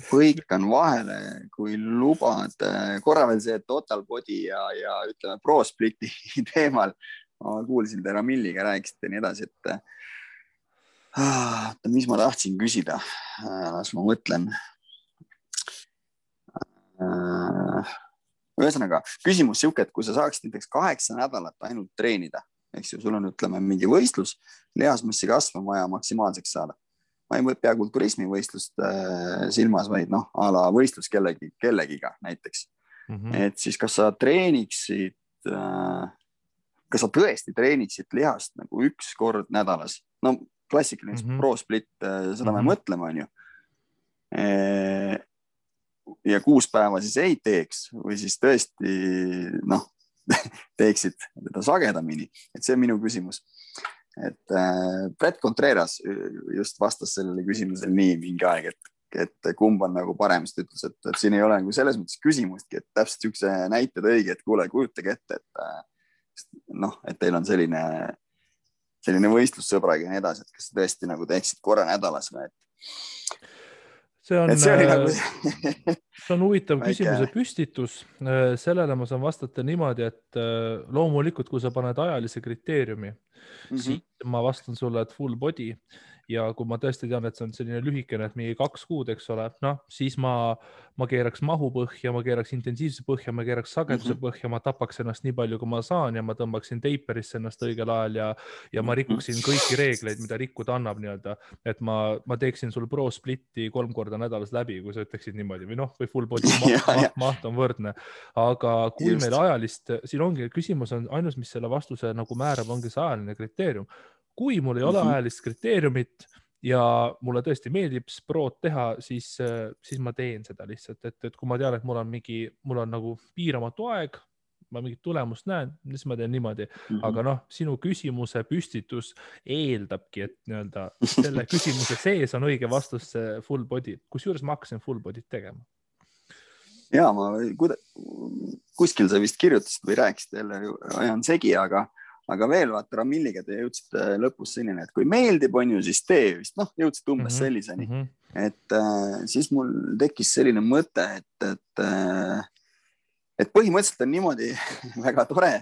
põikan vahele, kui lubad. Korra veel see Total Body ja ütleme Pro Spliti teemal. Ma kuulsin te Ramilliga rääkisite ja nii edasi, et mis ma tahtsin küsida. Las ma mõtlen. Ühesõnaga, küsimus siuke, et kui sa saaksid näiteks 8 nädalat ainult treenida, eks ju, sul on ütleme mingi võistlus, lihasmassi kasv on vaja maksimaalseks saada. Ma ei pea kulturismi võistlust silmas, vaid noh, a la võistlus kellegiga näiteks. Et siis kas sa treeniksid, kas sa tõesti treeniksid lihast nagu 1 kord nädalas? No klassikaline Pro Split, seda me mõtleme, on ju. Ja 6 päeva siis ei teeks või siis tõesti noh, teeksid teda sagedamini. Et see on minu küsimus. Et Brett Contreras just vastas sellele küsimusele nii mingi aeg, et kumb on nagu parem, sest ütles, et siin ei ole nagu selles mõttes küsimustki, et täpselt üks näited õige, et kuule, kujutage ette, et noh, et teil on selline võistlussõbraga ja nii edasi, et kas tõesti nagu teeksid korra nädalas või, see on huvitav küsimuse püstitus. Sellele ma saan vastata niimoodi, et loomulikult, kui sa paned ajalise kriteeriumi, siis ma vastan sulle, et full body. Ja kui ma tõesti tean, et see on selline lühikene, et mingi 2 kuud, eks ole, noh, siis ma keeraks mahu põhja, ma keeraks intensiivse põhja, ma keeraks sageduse põhja, ma tapaks ennast nii palju, kui ma saan ja ma tõmbaksin teiperisse ennast õigel ajal ja ma rikuksin kõiki reegleid, mida rikkuda annab nii-öelda, et ma teeksin sul Pro Spliti 3 korda nädalas läbi, kui sa ütleksid niimoodi või noh, või full body maht on võrdne. Aga kui meil ajalist, siin ongi küsimus on ainus, mis selle vastuse nagu määrab, ongi see ajaline kriteerium. Kui mul ei ole ajalist kriteeriumit ja mulle tõesti meeldib sprot teha, siis ma teen seda lihtsalt, et kui ma tean, et mul on nagu piiramatu aeg, ma mingit tulemust näen, siis ma teen niimoodi. Aga noh, sinu küsimuse püstitus eeldabki, et nii-öelda selle küsimuse sees on õige vastus full body. Kusjuures ma hakkasin full body't tegema. Ja, kuskil sa vist kirjutasid või rääkisid jälle, ajan segi, aga aga veel vaata Ramilliga te jõudsite lõpus selline, et kui meeldib, on ju, siis tee vist, noh, jõudsite umbes selliseni. Et siis mul tekkis selline mõte, et põhimõtteliselt on niimoodi väga tore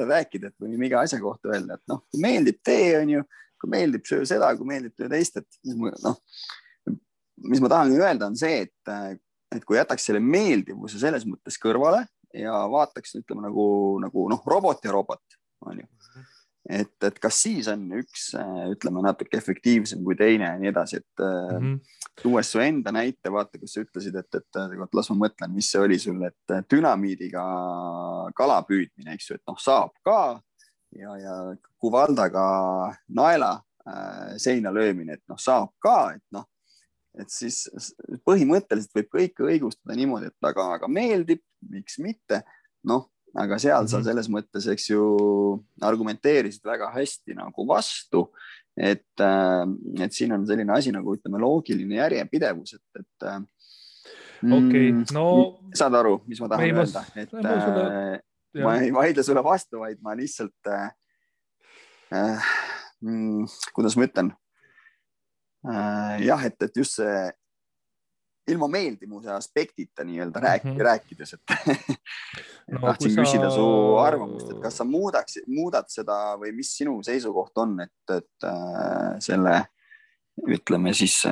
rääkida, et võime iga asja kohta öelda, et noh, kui meeldib tee, on ju, kui meeldib söö seda, kui meeldib töö teist, et noh, mis ma tahan öelda on see, et kui jätaks selle meeldivuse selles mõttes kõrvale ja vaataks, ütleme nagu robot ja robot, on ju. Et kas siis on üks, ütleme, natuke efektiivsem kui teine ja nii edasi, et tuues su enda näite, vaata, kus sa ütlesid, et las ma mõtlen, mis see oli sul, et dünamiidiga kala püüdmine, eks ju, et noh, saab ka ja kuvaldaga naela seina löömine, et noh, saab ka, et noh, et siis põhimõtteliselt võib kõike õigustada niimoodi, et aga meeldib, miks mitte, noh, aga seal sa selles mõttes, eks ju, argumenteerisid väga hästi nagu vastu, et siin on selline asi nagu, ütleme, loogiline järjepidevus, et okei, no saad aru, mis ma tahan öelda, et ma ei vaidle sulle vastu, vaid ma lihtsalt kuidas ma ütlen, jah, et just see ilma meeldimuse aspektita nii-öelda rääkides, et tahtsin küsida su arvamust, et kas sa muudad seda või mis sinu seisukoht on, et selle, ütleme siis,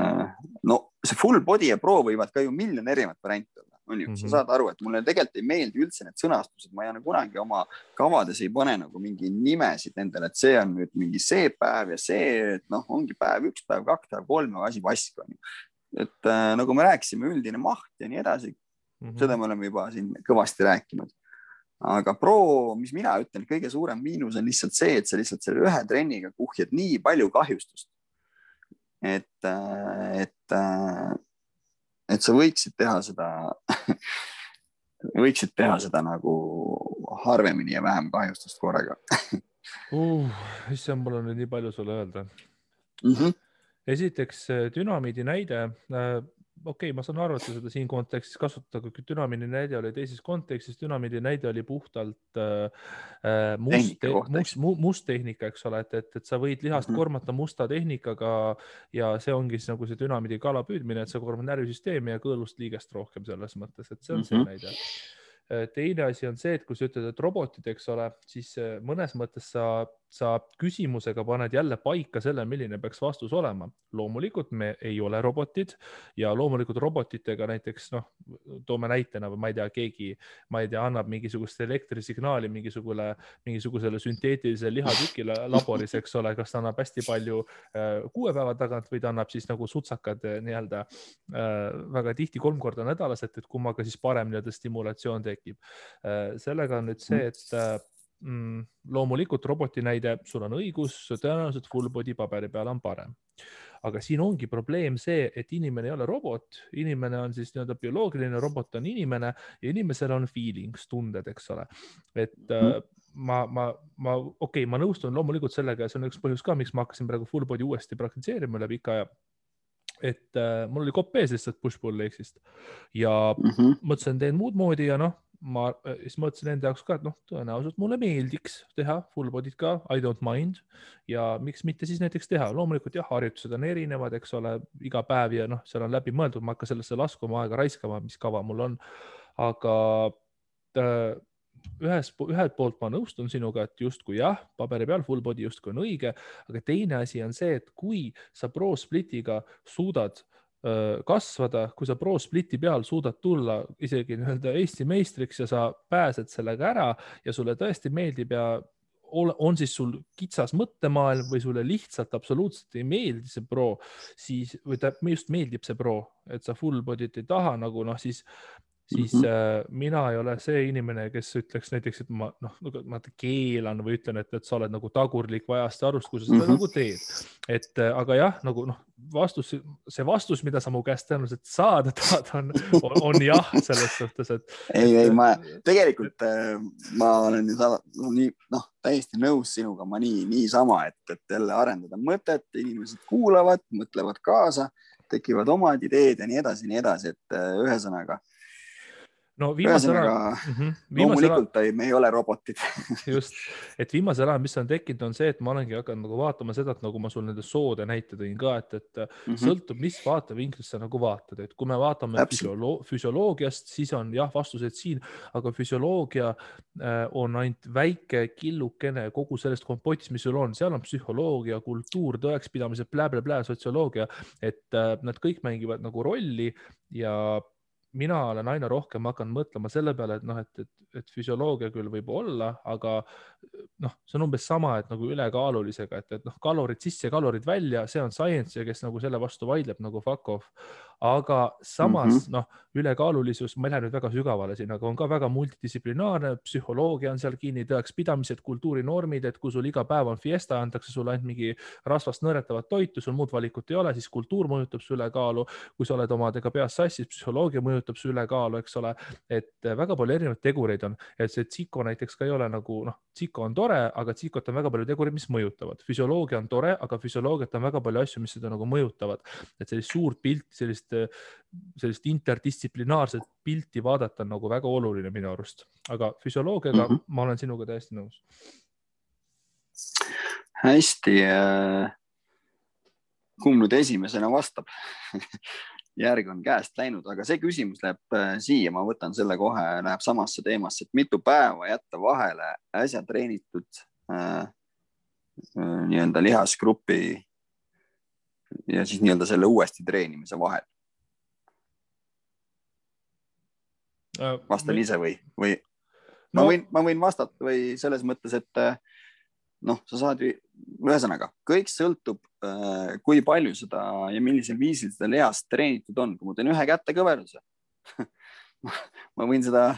no see full body ja pro võivad ka ju miljon erinevat varianti olla, on ju, sa saad aru, et mulle tegelikult ei meeldi üldse need sõnastused, ma ei ole kunagi oma kavades ei pane nagu mingi nimesid nendele, et see on nüüd mingi see päev ja see, et noh, ongi päev 1, päev 2, päev 3, aga asi vask on ju. Et nagu me rääkisime, üldine maht ja nii edasi, seda me oleme juba siin kõvasti rääkinud. Aga pro, mis mina ütlen, kõige suurem miinus on lihtsalt see, et sa lihtsalt selle ühe trenniga kuhjad nii palju kahjustust, et sa võiksid teha seda nagu harvemini ja vähem kahjustust korraga. Issand, mul on nüüd nii palju sulle öelda. Esiteks dünamiidi näide, okei, ma saan aru, et seda siin kontekstis kasutada, kui dünamiidi näide oli teises kontekstis, dünamiidi näide oli puhtalt must tehnika, eks ole, et sa võid lihast kormata musta tehnikaga ja see ongi siis nagu see dünamiidi kala püüdmine, et sa kormad närvisüsteemi ja kõõlust liigest rohkem selles mõttes, et see on see näide. Teine asi on see, et kui sa ütled, et robotid, eks ole, siis mõnes mõttes sa küsimusega paned jälle paika selle, milline peaks vastus olema. Loomulikult me ei ole robotid ja loomulikult robotitega näiteks, noh, toome näitena, ma ei tea, keegi, annab mingisugust elektrisignaali mingisugusele sünteetilisele lihatükile laboris, eks ole, kas ta annab hästi palju 6 päeva tagant või ta annab siis nagu sutsakad nii-öelda väga tihti 3 korda nädalas, et kummaga siis parem nii-öelda stimulatsioon tekib. Sellega on nüüd see, et loomulikult roboti näide, sul on õigus, tõenäoliselt full body paberi peal on parem. Aga siin ongi probleem see, et inimene ei ole robot, inimene on siis nii-öelda bioloogiline, robot on inimene ja inimesel on feelings, tunded, eks ole. Et ma nõustun loomulikult sellega ja see on üks põhjus ka, miks ma hakkasin praegu full body uuesti praktitseerima üle pika aja. Et mul oli kopp ees lihtsalt push-pull leeksist ja mõtlesin, teen muud moodi ja noh, siis mõtlesin enda jaoks ka, et noh, tõenäoliselt mulle meeldiks teha full body't ka, I don't mind ja miks mitte siis näiteks teha. Loomulikult jah, harjutused on erinevad, eks ole, iga päev ja noh, seal on läbi mõeldud, ma hakka sellesse laskuma aega raiskama, mis kava mul on. Aga ühelt poolt ma nõustun sinuga, et justkui jah, paberi peal full body justkui on õige, aga teine asi on see, et kui sa pro splitiga suudad kasvada, kui sa pro spliti peal suudad tulla isegi nii-öelda Eesti meistriks ja sa pääsed sellega ära ja sulle tõesti meeldib ja on siis sul kitsas mõttemaailm või sulle lihtsalt absoluutselt ei meeldi see pro, siis, või just meeldib see pro, et sa full body't ei taha nagu noh, siis mina ei ole see inimene, kes ütleks näiteks, et ma keelan või ütlen, et sa oled nagu tagurlik vajast arust, kui sa seda nagu teed. Et aga jah, nagu noh, see vastus, mida sa mu käest tõenäoliselt saada tahad, on jah, selles suhtes, et... Ei, ma tegelikult ma olen täiesti nõus sinuga, ma nii sama, et jälle arendada mõtet, inimesed kuulavad, mõtlevad kaasa, tekivad omad ideed ja nii edasi, et ühesõnaga no viimasel ühesõnaga, loomulikult me ei ole robotid. Just, et viimasel ajal, mis on tekkinud, on see, et ma olengi hakanud nagu vaatama seda, et nagu ma sul nende soode näite tõin ka, et sõltub, mis vaatevinklist sa nagu vaatad, et kui me vaatame füsioloogiast, siis on jah, vastused siin, aga füsioloogia on ainult väike killukene kogu sellest kompotist, mis sul on, seal on psühholoogia, kultuur, tõekspidamised, sotsioloogia, et nad kõik mängivad nagu rolli ja mina olen aina rohkem hakanud mõtlema selle peale, et noh, et füsioloogia küll võib olla, aga noh, see on umbes sama, et nagu ülekaalulisega, et noh, kalorid sisse ja kalorid välja, see on science ja kes nagu selle vastu vaidleb nagu fuck off. Aga samas noh, ülekaalulisus, ma ei lähe nüüd väga sügavale siin, aga on ka väga multidistsiplinaarne, psühholoogia on seal kinni, tõekspidamised, kultuurinormid, et kui sul iga päev on fiesta, antakse sulle ainult mingi rasvast nõretavat toitu, sul muud valikut ei ole, siis kultuur mõjutab su ülekaalu, kui sa oled omadega peas sassis, psühholoogia mõjutab su ülekaalu, eks ole, et väga palju erinevaid tegureid on, et see tsiko näiteks ka ei ole nagu, noh, tsiko on tore, aga tsikot on väga palju tegureid, mis mõjutavad. Füsioloogia on tore, aga füsioloogiat on väga palju asju, mis seda nagu mõjutavad. Et sellist suurt pilti, sellist interdistsiplinaarset pilti vaadata on nagu väga oluline minu arust. Aga füsioloogiaga ma olen sinuga täiesti nõus. Hästi. Kumb nüüd esimesena vastab? Järg on käest läinud, aga see küsimus läheb siia, ma võtan selle kohe, läheb samasse teemasse, et mitu päeva jätta vahele äsja treenitud nii-öelda lihasgrupi ja siis nii-öelda selle uuesti treenimise vahel. Vastan ise või? Ma võin vastata või selles mõttes, et noh, sa saad ühesõnaga, kõik sõltub, kui palju seda ja millisel viisil seda lihast treenitud on. Kui ma teen ühe kätekõveruse, ma võin seda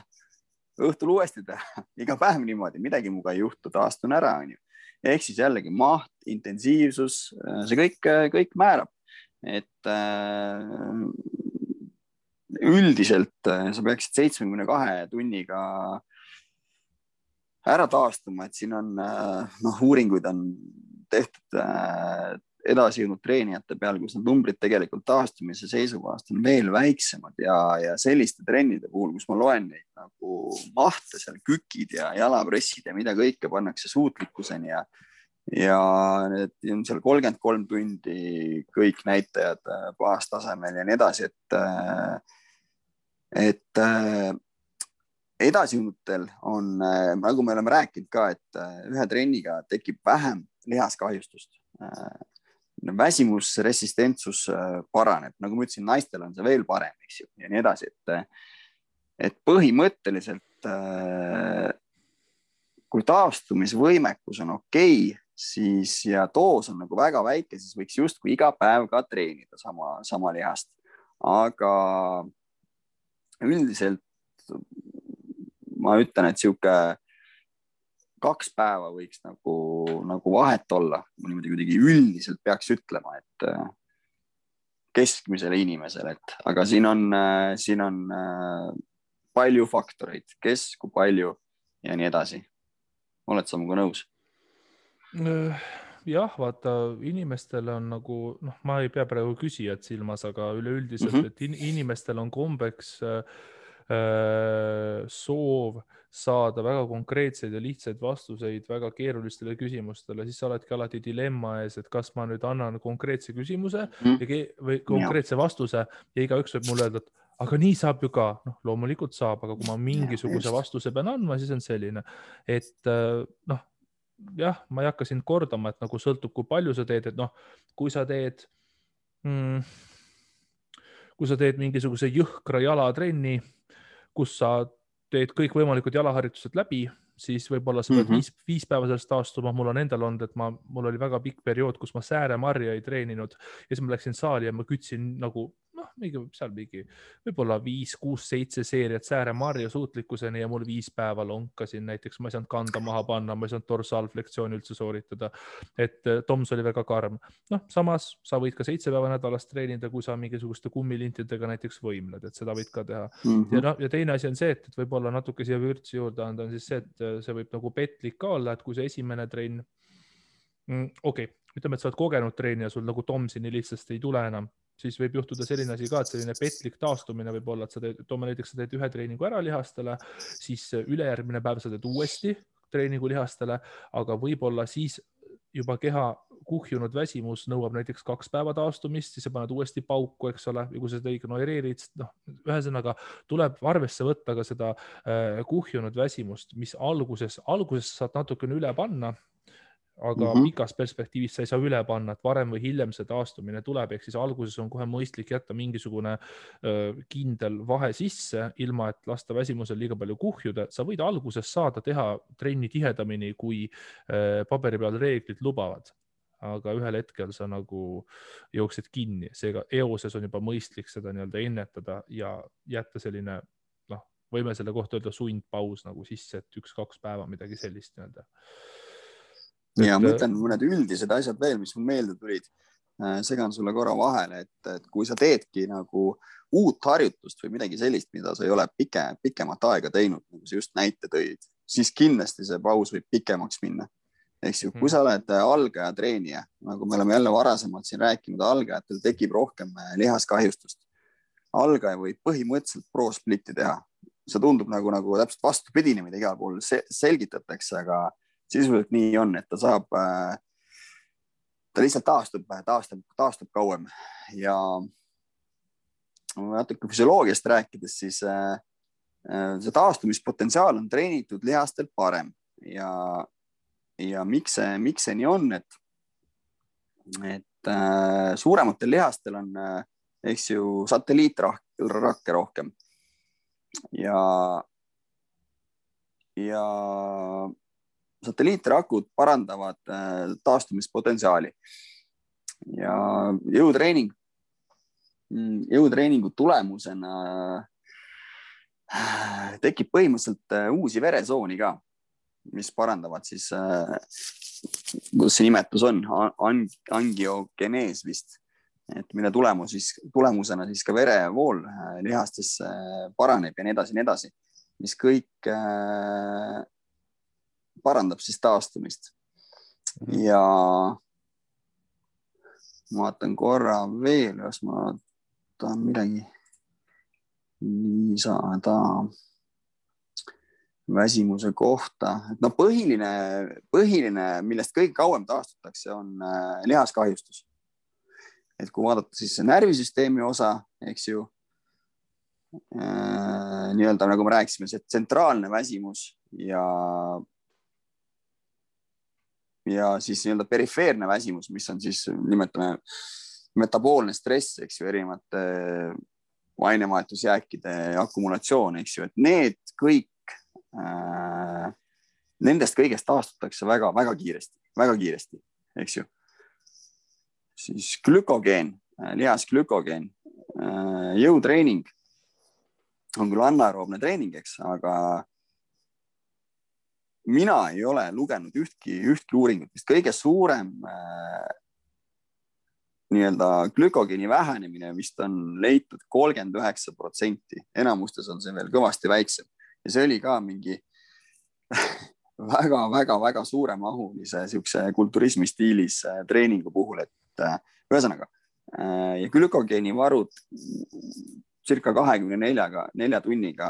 õhtul uuesti teha, iga päev niimoodi, midagi muga ei juhtu, taastun ära. Ehk siis jällegi maht, intensiivsus, see kõik määrab. Et üldiselt sa peaksid 72 tunniga ära taastuma, et siin on uuringuid on tehtud edasi jõudnud treenijate peal, kus need numbrid tegelikult taastumise seisukohast on veel väiksemad ja selliste trennide puhul, kus ma loen neid nagu mahte seal, kükid ja jalapressid ja mida kõike pannakse suutlikkuseni ja need on seal 33 tundi kõik näitajad baastasemel ja nii edasi, et edasijõudnutel on, nagu me oleme rääkinud ka, et ühe trenniga tekib vähem lihaskahjustust. Väsimusresistentsus paraneb, nagu ma ütlesin, naistel on see veel parem, eks ju, ja nii edasi, et põhimõtteliselt kui taastumisvõimekus on okei, siis ja doos on nagu väga väike, siis võiks justkui iga päev ka treenida sama lihast. Aga üldiselt ma ütlen, et siuke 2 päeva võiks nagu vahet olla. Ma niimoodi kuidagi üldiselt peaks ütlema, et keskmisele inimesele, aga siin on palju faktoreid, kes, kui palju ja nii edasi. Oled sa muga nõus? Jah, vaata, inimestel on nagu, noh, ma ei pea praegu küsijad silmas, aga üleüldiselt, et inimestel on kombeks soov saada väga konkreetseid ja lihtsaid vastuseid väga keerulistele küsimustele, siis sa oledki alati dilemma ees, et kas ma nüüd annan konkreetse küsimuse või konkreetse vastuse ja igaüks võib mulle öelda, et aga nii saab ju ka. Noh, loomulikult saab, aga kui ma mingisuguse vastuse pean andma, siis on selline, et noh, jah, ma ei hakka sind kordama, et nagu sõltub, kui palju sa teed, et noh, kui sa teed mingisuguse jõhkra jalatrenni, kus sa teed kõik võimalikud jalaharjutused läbi, siis võib-olla sa pead 5 päeva sellest taastuma. Mul on endal olnud, et mul oli väga pikk periood, kus ma sääremarja ei treeninud ja siis ma läksin saali ja ma kütsin nagu võib-olla 5, 6, 7 seeriat sääremarja suutlikkuseni ja mul 5 päeva lonkasin. Näiteks ma ei saanud kanda maha panna, ma ei saanud dorsaalflektsiooni üldse sooritada. Et Toms oli väga karm. Noh, samas sa võid ka 7 päeva nädalas treenida, kui sa mingisuguste kummilintidega näiteks võimled, et seda võid ka teha. Ja teine asi on see, et võib-olla natuke siia vürtsi juurde anda, on siis see, et see võib nagu petlik ka olla, et kui see esimene trenn, ütleme, et sa oled kogenud treenija, sul nagu Tomsi nii lihtsasti ei tule enam. siis võib juhtuda selline asi ka, et selline petlik taastumine võib olla, et sa teed, toome näiteks, sa teed ühe treeningu ära lihastele, siis ülejärgmine päev sa teed uuesti treeningu lihastele, aga võib-olla siis juba keha kuhjunud väsimus nõuab näiteks 2 päeva taastumist, siis sa paned uuesti pauku, eks ole, ja kui sa seda ignoreerid, noh, ühesõnaga tuleb arvesse võtta ka seda kuhjunud väsimust, mis alguses saad natukene üle panna, aga pikas perspektiivis sa ei saa üle panna, et varem või hiljem see taastumine tuleb, ehk siis alguses on kohe mõistlik jätta mingisugune kindel vahe sisse, ilma et lasta väsimusel liiga palju kuhjuda. Sa võid alguses saada teha trenni tihedamini, kui paberi peal reeglid lubavad, aga ühel hetkel sa nagu jooksed kinni, seega eoses on juba mõistlik seda nii-öelda ennetada ja jätta selline, noh, võime selle kohta öelda sundpaus nagu sisse, et 1-2 päeva midagi sellist nii-öelda. Ja ma ütlen mõned üldised asjad veel, mis mul meelde tulid. Segan sulle korra vahele, et kui sa teedki nagu uut harjutust või midagi sellist, mida sa ei ole pikemat aega teinud, nagu sa just näite tõid, siis kindlasti see paus võib pikemaks minna. Ehk siis, kui sa oled algaja treenija, nagu me oleme jälle varasemalt siin rääkinud, algajatel tekib rohkem lihaskahjustust. Algaja võib põhimõtteliselt pro-splitti teha. See tundub nagu täpselt vastupidine, mida igal pool selgitatakse, aga sisuliselt nii on, et ta saab, ta lihtsalt taastub kauem ja natuke füsioloogiast rääkides, siis see taastumispotentsiaal on treenitud lihastel parem ja miks see nii on, et suurematel lihastel on, eks ju, satelliitrakke rohkem ja satelliitrakud parandavad taastumispotentsiaali ja jõutreeningu tulemusena tekib põhimõtteliselt uusi veresooni ka, mis parandavad siis, kuidas see nimetus on, angiogenees vist, et mille tulemusena siis ka verevool lihastesse paraneb ja nii edasi, mis kõik parandab siis taastumist. Ja ma vaatan korra veel, jos ma tahan midagi lisada väsimuse kohta. No põhiline, millest kõige kauem taastutakse, on lihaskahjustus. Et kui vaadata siis närvisüsteemi osa, eks ju, nii-öelda nagu me rääkisime, see tsentraalne väsimus ja siis nii-öelda perifeerne väsimus, mis on siis, nimetame, metaboolne stress, eks ju, erinevate ainevahetusjääkide akumulatsioon, eks ju, et need kõik, nendest kõigest taastutakse väga kiiresti, eks ju. Siis glükogeen, lihasglükogeen, jõutreening on küll anaeroobne treening, eks, aga mina ei ole lugenud ühtki uuringut, mis kõige suurem nii-öelda glükogeeni vähenemine vist on leitud 39%. Enamustes on see veel kõvasti väiksem. Ja see oli ka mingi väga suuremahulise kulturismi stiilis treeningu puhul, et ühesõnaga ja glükogeeni varud circa 24 tunniga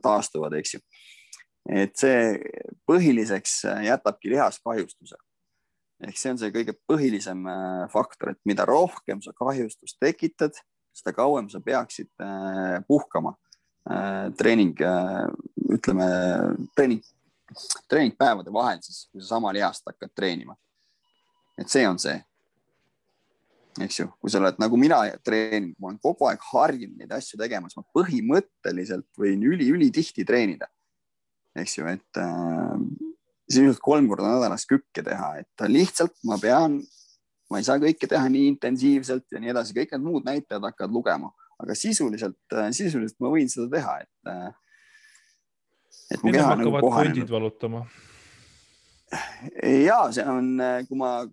taastuvad, eks ju. Et see põhiliseks jätabki lihaskahjustuse. Ehk see on see kõige põhilisem faktor, et mida rohkem sa kahjustust tekitad, seda kauem sa peaksid puhkama treeningpäevade vahel, siis kui sa sama lihast hakkad treenima. Et see on see. Eks ju, kui sa oled nagu mina treenin, ma olen kogu aeg harjunud neid asju tegemas, ma põhimõtteliselt võin üli tihti treenida. Eks ju, et siis 3 korda nädalas kükke teha, et lihtsalt ma ei saa kõike teha nii intensiivselt ja nii edasi, kõik need muud näitajad hakkavad lugema, aga sisuliselt ma võin seda teha, et mu keha nagu kohanenud. Valutama. Ja see on, kui ma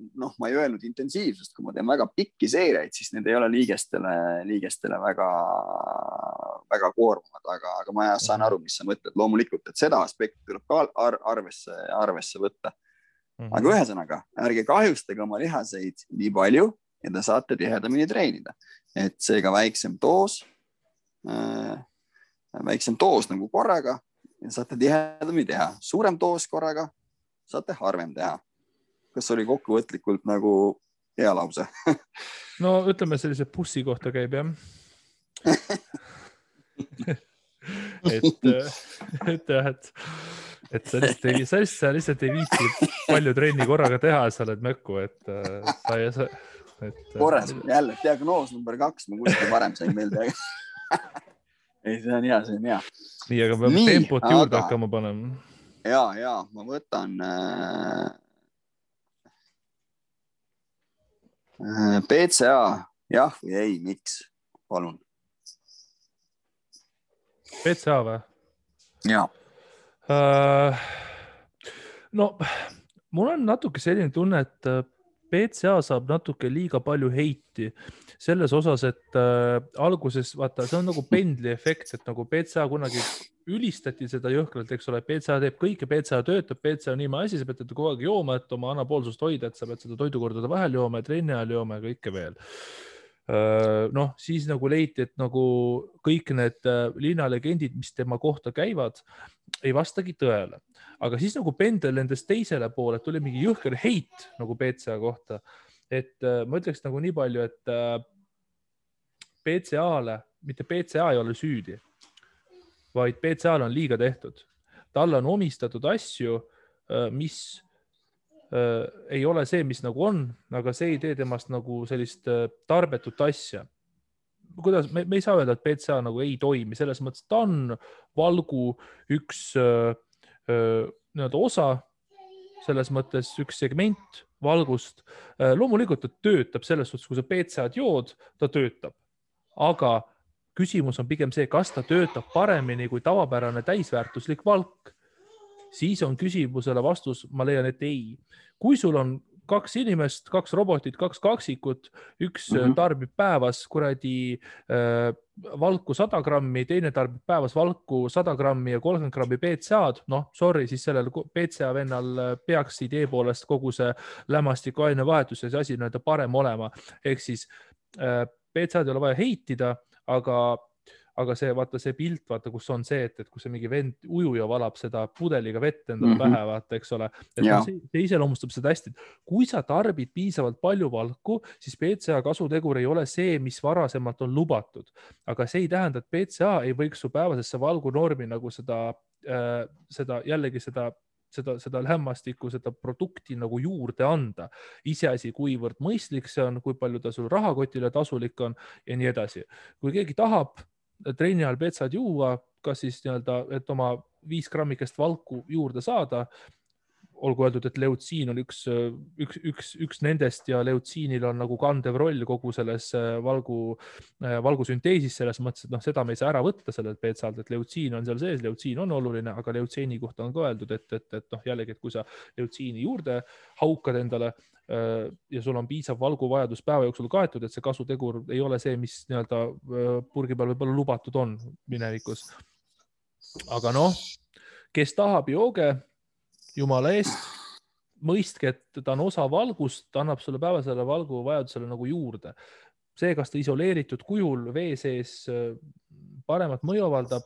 ei öelnud intensiivsust, kui ma teen väga pikki seeriaid, siis need ei ole liigestele väga koormavad, aga ma saan aru, mis sa mõtled loomulikult, et seda aspekti tuleb ka arvesse võtta. Aga ühesõnaga, ärge kahjustage oma lihaseid nii palju, ja te saate tihedamini treenida. Et seega väiksem doos nagu korraga ja saate tihedamini teha. Suurem doos korraga saate harvem teha. Kas oli kokkuvõtlikult nagu hea lause? No ütleme sellise bussi kohta käib, jah. et sa lihtsalt ei viitsi palju trenni korraga teha, sa oled mökku, et korras, jälle diagnoos number 2, ma kuskil varem sain meelde. Ei, see on hea. Nii, aga peame tempot juurde hakkama panema. Ja, ma võtan PCA, jah või ei, miks? Palun. PCA või? Jaa. No, mul on natuke selline tunne, et PCA saab natuke liiga palju heiti selles osas, et alguses, vaata, see on nagu pendli efekt, et nagu PCA kunagi ülistati seda jõhkralt, eks ole, PCA teeb kõike, PCA töötab, PCA on niima asi, sa pead kogu aeg jooma, et oma anapoolsust hoida, et sa pead seda toidukordade vahel jooma ja trenni ajal jooma ja kõike veel. Noh, siis nagu leiti, et nagu kõik need linnalegendid, mis tema kohta käivad, ei vastagi tõele. Aga siis nagu pendel endast teisele poole, tuli mingi jõhker heit nagu PCA kohta. Et ma ütleks nagu nii palju, et PCA-le, mitte PCA ei ole süüdi, vaid PCA-le on liiga tehtud. Talle on omistatud asju, mis ei ole see, mis nagu on, aga see ei tee temast nagu sellist tarbetut asja. Kuidas, me ei saa öelda, et PCA nagu ei toimi, selles mõttes, ta on valgu üks osa, selles mõttes üks segment valgust. Loomulikult ta töötab selles suhtes, kui sa PCA-d jood, ta töötab. Aga küsimus on pigem see, kas ta töötab paremini kui tavapärane täisväärtuslik valk. Siis on küsimusele vastus, ma leian, et ei. Kui sul on 2 inimest, 2 robotit, 2 kaksikut, üks tarbib päevas kuradi valku 100 grammi, teine tarbib päevas valku 100 grammi ja 30 grammi PCA-d, noh, sorry, siis sellel PCA vennal peaks idee poolest kogu see lämmastiku ainevahetus ja see asi näida parem olema. Ehk siis PCA-d ei ole vaja heitida, aga see, vaata see pilt, vaata, kus on see, et kui see mingi vend ujuja valab seda pudeliga vett endale pähe, vaata, eks ole. Et see iseloomustab seda hästi. Kui sa tarbid piisavalt palju valku, siis PCA kasutegur ei ole see, mis varasemalt on lubatud. Aga see ei tähenda, et PCA ei võiks su päevasesse valgunormi nagu seda lämmastikku, seda produkti nagu juurde anda. Iseasi, kuivõrd mõistlik see on, kui palju ta sul rahakotile tasulik on ja nii edasi. Kui keegi tahab trenni ajal PCA-d juua, kas siis et oma 5 grammikest valku juurde saada, olgu öeldud, et leutsiin on üks nendest ja leutsiinil on nagu kandev roll kogu selles valgusünteesis, selles mõttes, et seda me ei saa ära võtta sellelt PCA-lt, et leutsiin on seal sees, leutsiin on oluline, aga leutsiini kohta on ka öeldud, et jällegi, et kui sa leutsiini juurde haukad endale ja sul on piisav valguvajadus päeva jooksul kaetud, et see kasutegur ei ole see, mis purgi peal võib-olla lubatud on minevikus. Aga kes tahab jooge, jumala eest, mõistke, et ta on osa valgust, ta annab sulle päevasele valguvajadusele nagu juurde. See, kas ta isoleeritud kujul vee sees paremat mõju avaldab,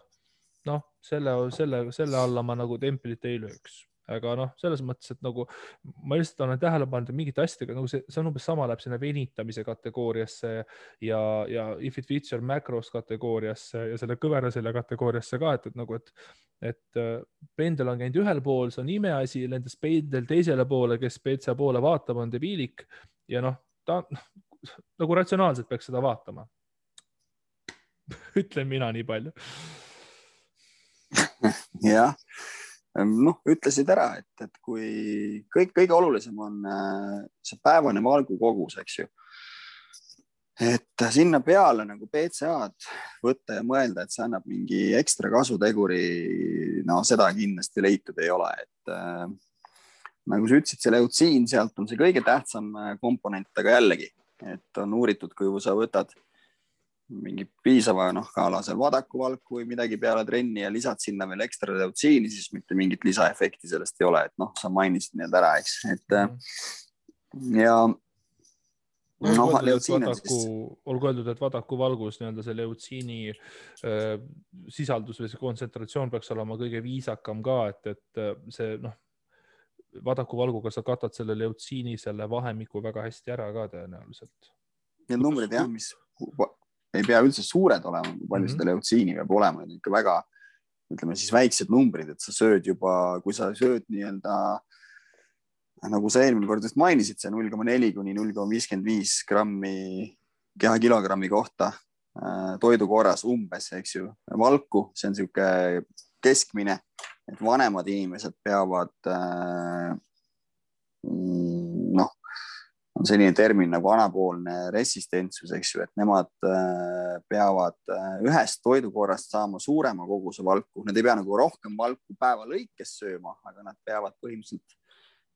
selle alla ma nagu templit ei lööks. Aga selles mõttes, et nagu ma lihtsalt olen tähele pannud mingite asjadega, nagu see on umbes sama läheb sinna venitamise kategooriasse ja if it fits your macros kategooriasse ja selle kõverasele kategooriasse ka, et pendel on käinud ühel pool, see on imeasi, lendas pendel teisele poole, kes PCA poole vaatab, on debiilik ja ta nagu ratsionaalselt peaks seda vaatama. Ütlen mina nii palju. Jah. Ütlesid ära, et kui kõige olulisem on see päevane valgu kogus, eks ju. Et sinna peale nagu PCA-d võtta ja mõelda, et see annab mingi ekstra kasuteguri, seda kindlasti leitud ei ole. Et nagu sa ütlesid, see leutsiin, sealt on see kõige tähtsam komponent, aga jällegi, et on uuritud, kui sa võtad mingi piisava kaalasel vadakuvalku või midagi peale trenni ja lisad sinna veel ekstra leutsiini, siis mitte mingit lisaefekti sellest ei ole, et sa mainisid need ära, eks. Ja olgu öeldud, et vadaku valgus nii-öelda see leutsiini sisaldus või see kontsentratsioon peaks olema kõige viisakam ka, et see vadaku valguga sa katad selle leutsiini selle vahemiku väga hästi ära ka tõenäoliselt. Need numbrid jah, mis ei pea üldse suured olema, kui palju seda leutsiini peab olema, ikka väga, ütleme siis väiksed numbrid, et sa sööd juba, kui sa sööd nii-öelda nagu sa eelmine kord just mainisid, see 0,4 kuni 0,55 grammi kehakilogrammi kohta toidu korras umbes, eks ju, valku, see on siuke keskmine, et vanemad inimesed peavad on selline termin nagu anaboolne resistentsus, eks ju, et nemad peavad ühest toidukorrast saama suurema koguse valku. Nad ei pea nagu rohkem valku päeva lõikes sööma, aga nad peavad põhimõtteliselt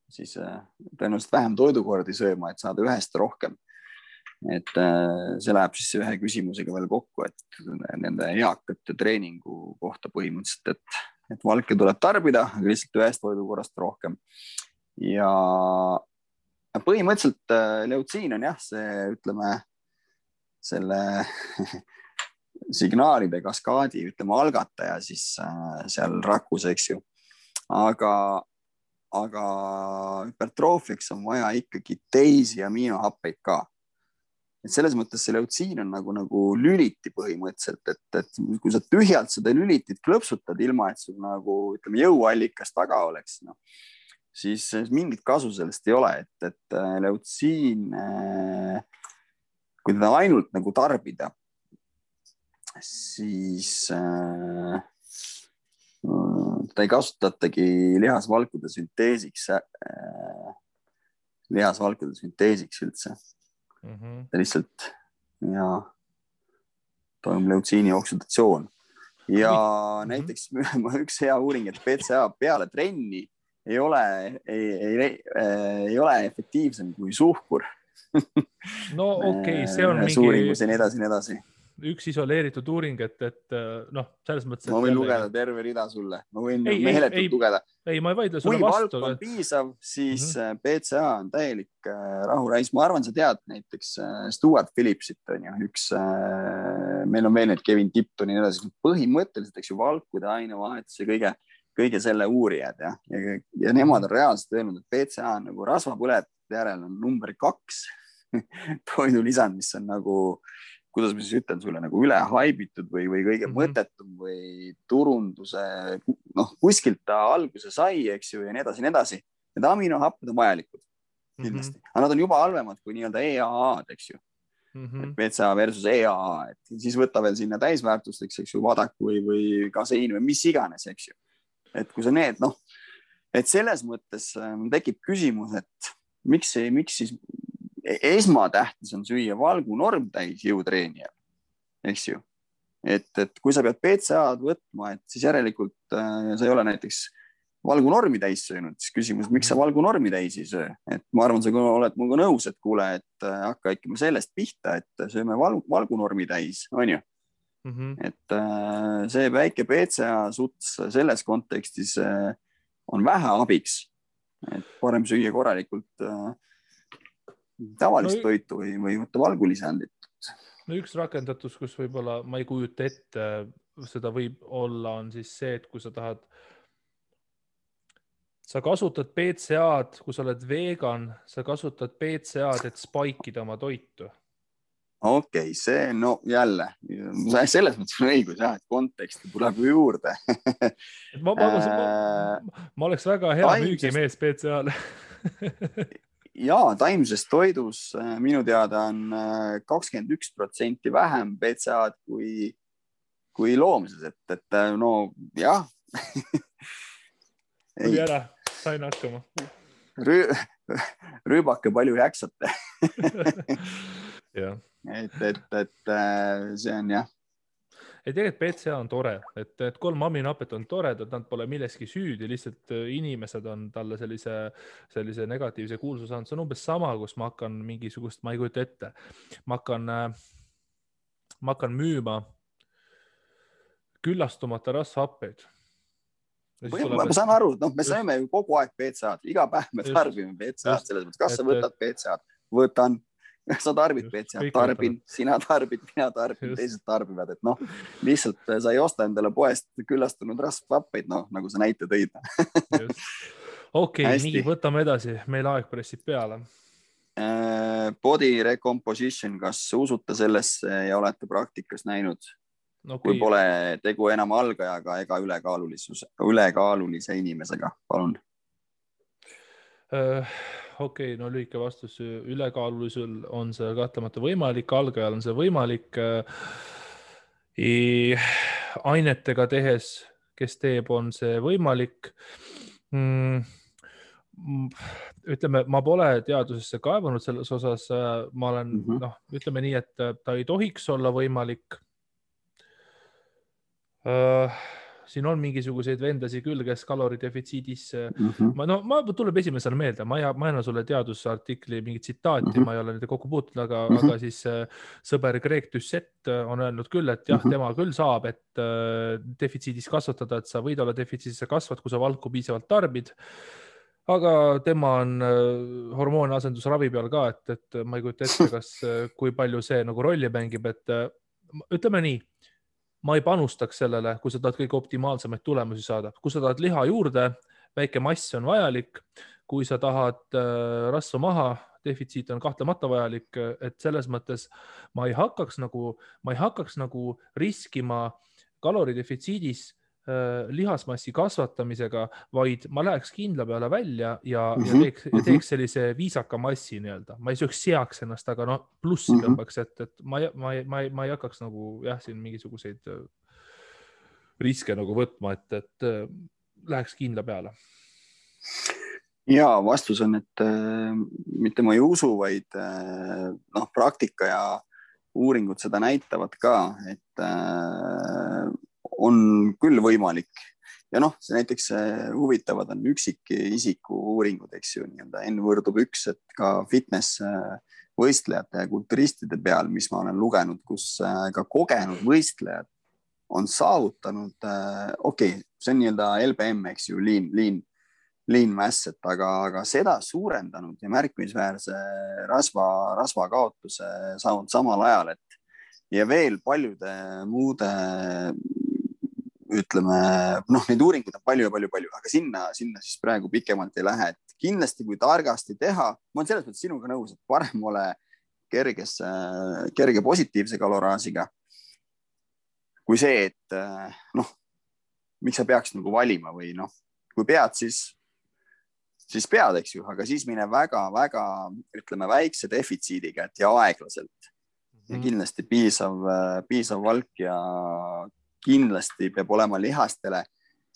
siis tõenäoliselt vähem toidukordi sööma, et saada ühest rohkem. Et see läheb siis ühe küsimusega veel kokku, et nende eakate treeningu kohta põhimõtteliselt, et valke tuleb tarbida, aga lihtsalt ühest toidukorrast rohkem. Ja põhimõtteliselt leutsiin on jah, see ütleme selle signaalide kaskaadi, ütleme algataja siis seal rakus, eks ju. Aga hüpertroofiaks on vaja ikkagi teisi aminohappeid ka. Et selles mõttes see leutsiin on nagu lüliti põhimõtteliselt, et kui sa tühjalt seda lülitit klõpsutad ilma, et sul nagu ütleme jõuallikas taga oleks, siis mingit kasu sellest ei ole, et leutsiin, kui teda ainult nagu tarbida, siis ta ei kasutatagi lihasvalkude sünteesiks üldse. Ta lihtsalt toimub leutsiini oksidatsioon. Ja näiteks üks hea uuring, et PCA peale trenni ei ole efektiivsem kui suhkur. No okei, see on mingi suuringus ja nii edasi. Üks isoleeritud uuring, et selles mõttes... Ma võin lugeda terve rida sulle. Ma võin meheletult lugeda. Ei, ma ei vaidle sulle vastu. Kui valk on piisav, siis PCA on täielik rahurais. Ma arvan, sa tead näiteks Stuart Phillipsit on ju üks, meil on veel need Kevin Tipton ja edasi. Põhimõtteliselt, eks ju, valkude ainevahetus ja kõige selle uurijad ja nemad on reaalselt öelnud, et PCA on nagu rasvapõletajate järel on number 2 toidulisand, mis on nagu kuidas ma siis ütlen sulle, nagu üle haibitud või kõige mõttetum või turunduse, kuskilt ta alguse sai, eks ju, ja nii edasi. Need aminohapped on vajalikud, kindlasti. Aga nad on juba halvemad kui nii-öelda EAA-d, eks ju. PCA versus EAA, et siis võtta veel sinna täisväärtusteks, eks ju, vadaku või kaseiin või mis iganes, eks ju. Et kui sa need, et selles mõttes tekib küsimus, et miks siis esmatähtis on süüa valgu normtäis jõutreenijal, eks ju. Et kui sa pead PCA-d võtma, et siis järelikult sa ei ole näiteks valgu normi täis söönud, siis küsimus, miks sa valgu normi täis ei söö? Et ma arvan, sa oled mulle nõus, et kuule, et hakka ikka sellest pihta, et sööme valgu normi täis, on ju? Et see väike PCA suts selles kontekstis on vähe abiks, et parem süüa korralikult tavalist toitu või võtta valgulisandit. No üks rakendatus, kus võib-olla ma ei kujuta ette, seda võib olla, on siis see, et kui sa tahad, sa kasutad PCA-d, kui sa oled vegan, sa kasutad PCA-d, et spaikida oma toitu. Okei, see jälle, selles mõttes on õigus, et konteksti tuleb juurde. Ma oleks väga hea müügimees PCA-le. Jaa, taimses toidus minu teada on 21% vähem PCA-d kui loomses, et jah. Tuli ära, sain hakkama. Rüübake palju jaksate. Jah. Et see on jah. Ei tegelikult PCA on tore, et 3 aminohapet on toredad, nad pole milleski süüdi, lihtsalt inimesed on talle sellise negatiivse kuulsuse saanud. See on umbes sama, kus ma hakkan mingisugust, ma ei kujuta ette, ma hakkan müüma küllastumata rasvhappeid. Ma saan aru, me saime ju kogu aeg PCA-d, iga päev me tarbime PCA-d selles mõttes, kas sa võtad PCA-d? Võtan. sa tarbid BCA, tarbin, sina tarbid, mina tarbin, teised tarbivad, et noh, lihtsalt sa ei osta endale poest küllastunud rasvhappeid, noh, nagu sa näite tõid. Okei, nii, võtame edasi, meil aeg pressib peale. Body recomposition, kas usute sellesse ja olete praktikas näinud? Kui pole tegu enam algajaga ega ülekaalulise inimesega, palun. Okei, no lühike vastus, ülekaalulisul on see kahtlemata võimalik, algajal on see võimalik. Ainetega tehes, kes teeb, on see võimalik. Ütleme, ma pole teadusesse kaevanud selles osas, ma olen, ütleme nii, et ta ei tohiks olla võimalik. Siin on mingisuguseid vendasi küll, kes kaloridefitsiidis, ma tuleb esimesena meelde, ma ei anna sulle teadusartikli mingi tsitaati, ma ei ole nende kokku puutunud, aga siis sõber Greg Doucette on öelnud küll, et jah, tema küll saab, et defitsiidis kasvatada, et sa võid olla defitsiidis, sa kasvad, kui sa valku piisavalt tarbid. Aga tema on hormooni asendusravi peal ka, et ma ei kujuta ette, kui palju see nagu rolli mängib, et ütleme nii, ma ei panustaks sellele, kui sa tahad kõige optimaalsemaid tulemusi saada. Kui sa tahad liha juurde, väike mass on vajalik. Kui sa tahad rasva maha, defitsiit on kahtlemata vajalik, et selles mõttes ma ei hakkaks nagu riskima kaloridefitsiidis lihasmassi kasvatamisega, vaid ma läheks kindla peale välja ja teeks sellise viisaka massi nii-öelda. Ma ei seaks ennast, aga plussi tõmbaks, et ma ei hakkaks nagu siin mingisuguseid riske nagu võtma, et läheks kindla peale. Ja vastus on, et mitte ma ei usu, vaid praktika ja uuringud seda näitavad ka, et on küll võimalik. Ja see näiteks huvitavad on üksikisiku uuringud, eks ju, N/1, et ka fitness võistlejate ja kulturistide peal, mis ma olen lugenud, kus ka kogenud võistlejad on saavutanud, see on LBM, eks ju, lean mass, aga seda suurendanud ja märkimisväärse rasva kaotuse saanud samal ajal, ja veel paljude muude ütleme, neid uuringuid on palju, aga sinna siis praegu pikemalt ei lähe, et kindlasti kui targasti teha, ma olen selles mõttes sinuga nõus, et parem ole kerge positiivse kaloraasiga kui see, et miks sa peaks nagu valima või kui pead, siis pead, eks ju, aga siis mine väga, ütleme, väikse defitsiidiga, et ja aeglaselt ja kindlasti piisav valk ja kindlasti peab olema lihastele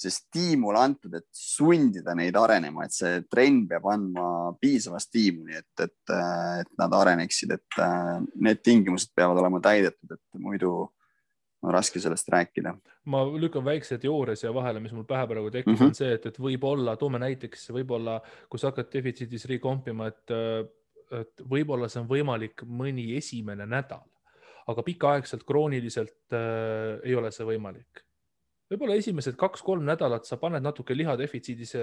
see stiimul antud, et sundida neid arenema, et see trenn peab andma piisava stiimuli, et nad areneksid, et need tingimused peavad olema täidetud, et muidu on raske sellest rääkida. Ma lükkan väikse teooria siia vahele, mis mul pähe praegu tekib, on see, et võib-olla, toome näiteks, võib-olla, kui sa hakkad defitsiidis rekompima, et võib-olla see on võimalik mõni esimene nädal, aga pikaaegselt krooniliselt ei ole see võimalik. Võib-olla esimesed 2-3 nädalat sa paned natuke lihadefitsiidis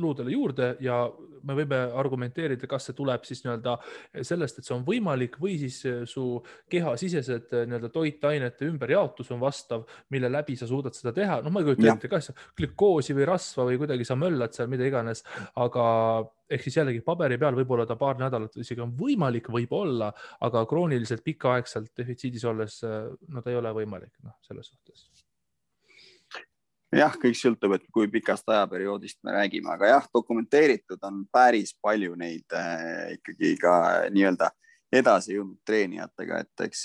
luudele juurde ja me võime argumenteerida, kas see tuleb siis sellest, et see on võimalik või siis su kehasisesed toitainete ümberjaotus on vastav, mille läbi sa suudad seda teha. Ma ei kujuta ette, kas glükoosi või rasva või kuidagi sa möllad seal mida iganes, aga ehk siis jällegi paberi peal võib-olla ta paar nädalat isegi on võimalik, võib-olla, aga krooniliselt pikaaegselt defitsiidis olles ta ei ole võimalik selles suhtes. Jah, kõik sõltub, et kui pikast ajaperioodist me räägime, aga jah, dokumenteeritud on päris palju neid ikkagi ka nii-öelda edasi jõudnud treenijatega, et eks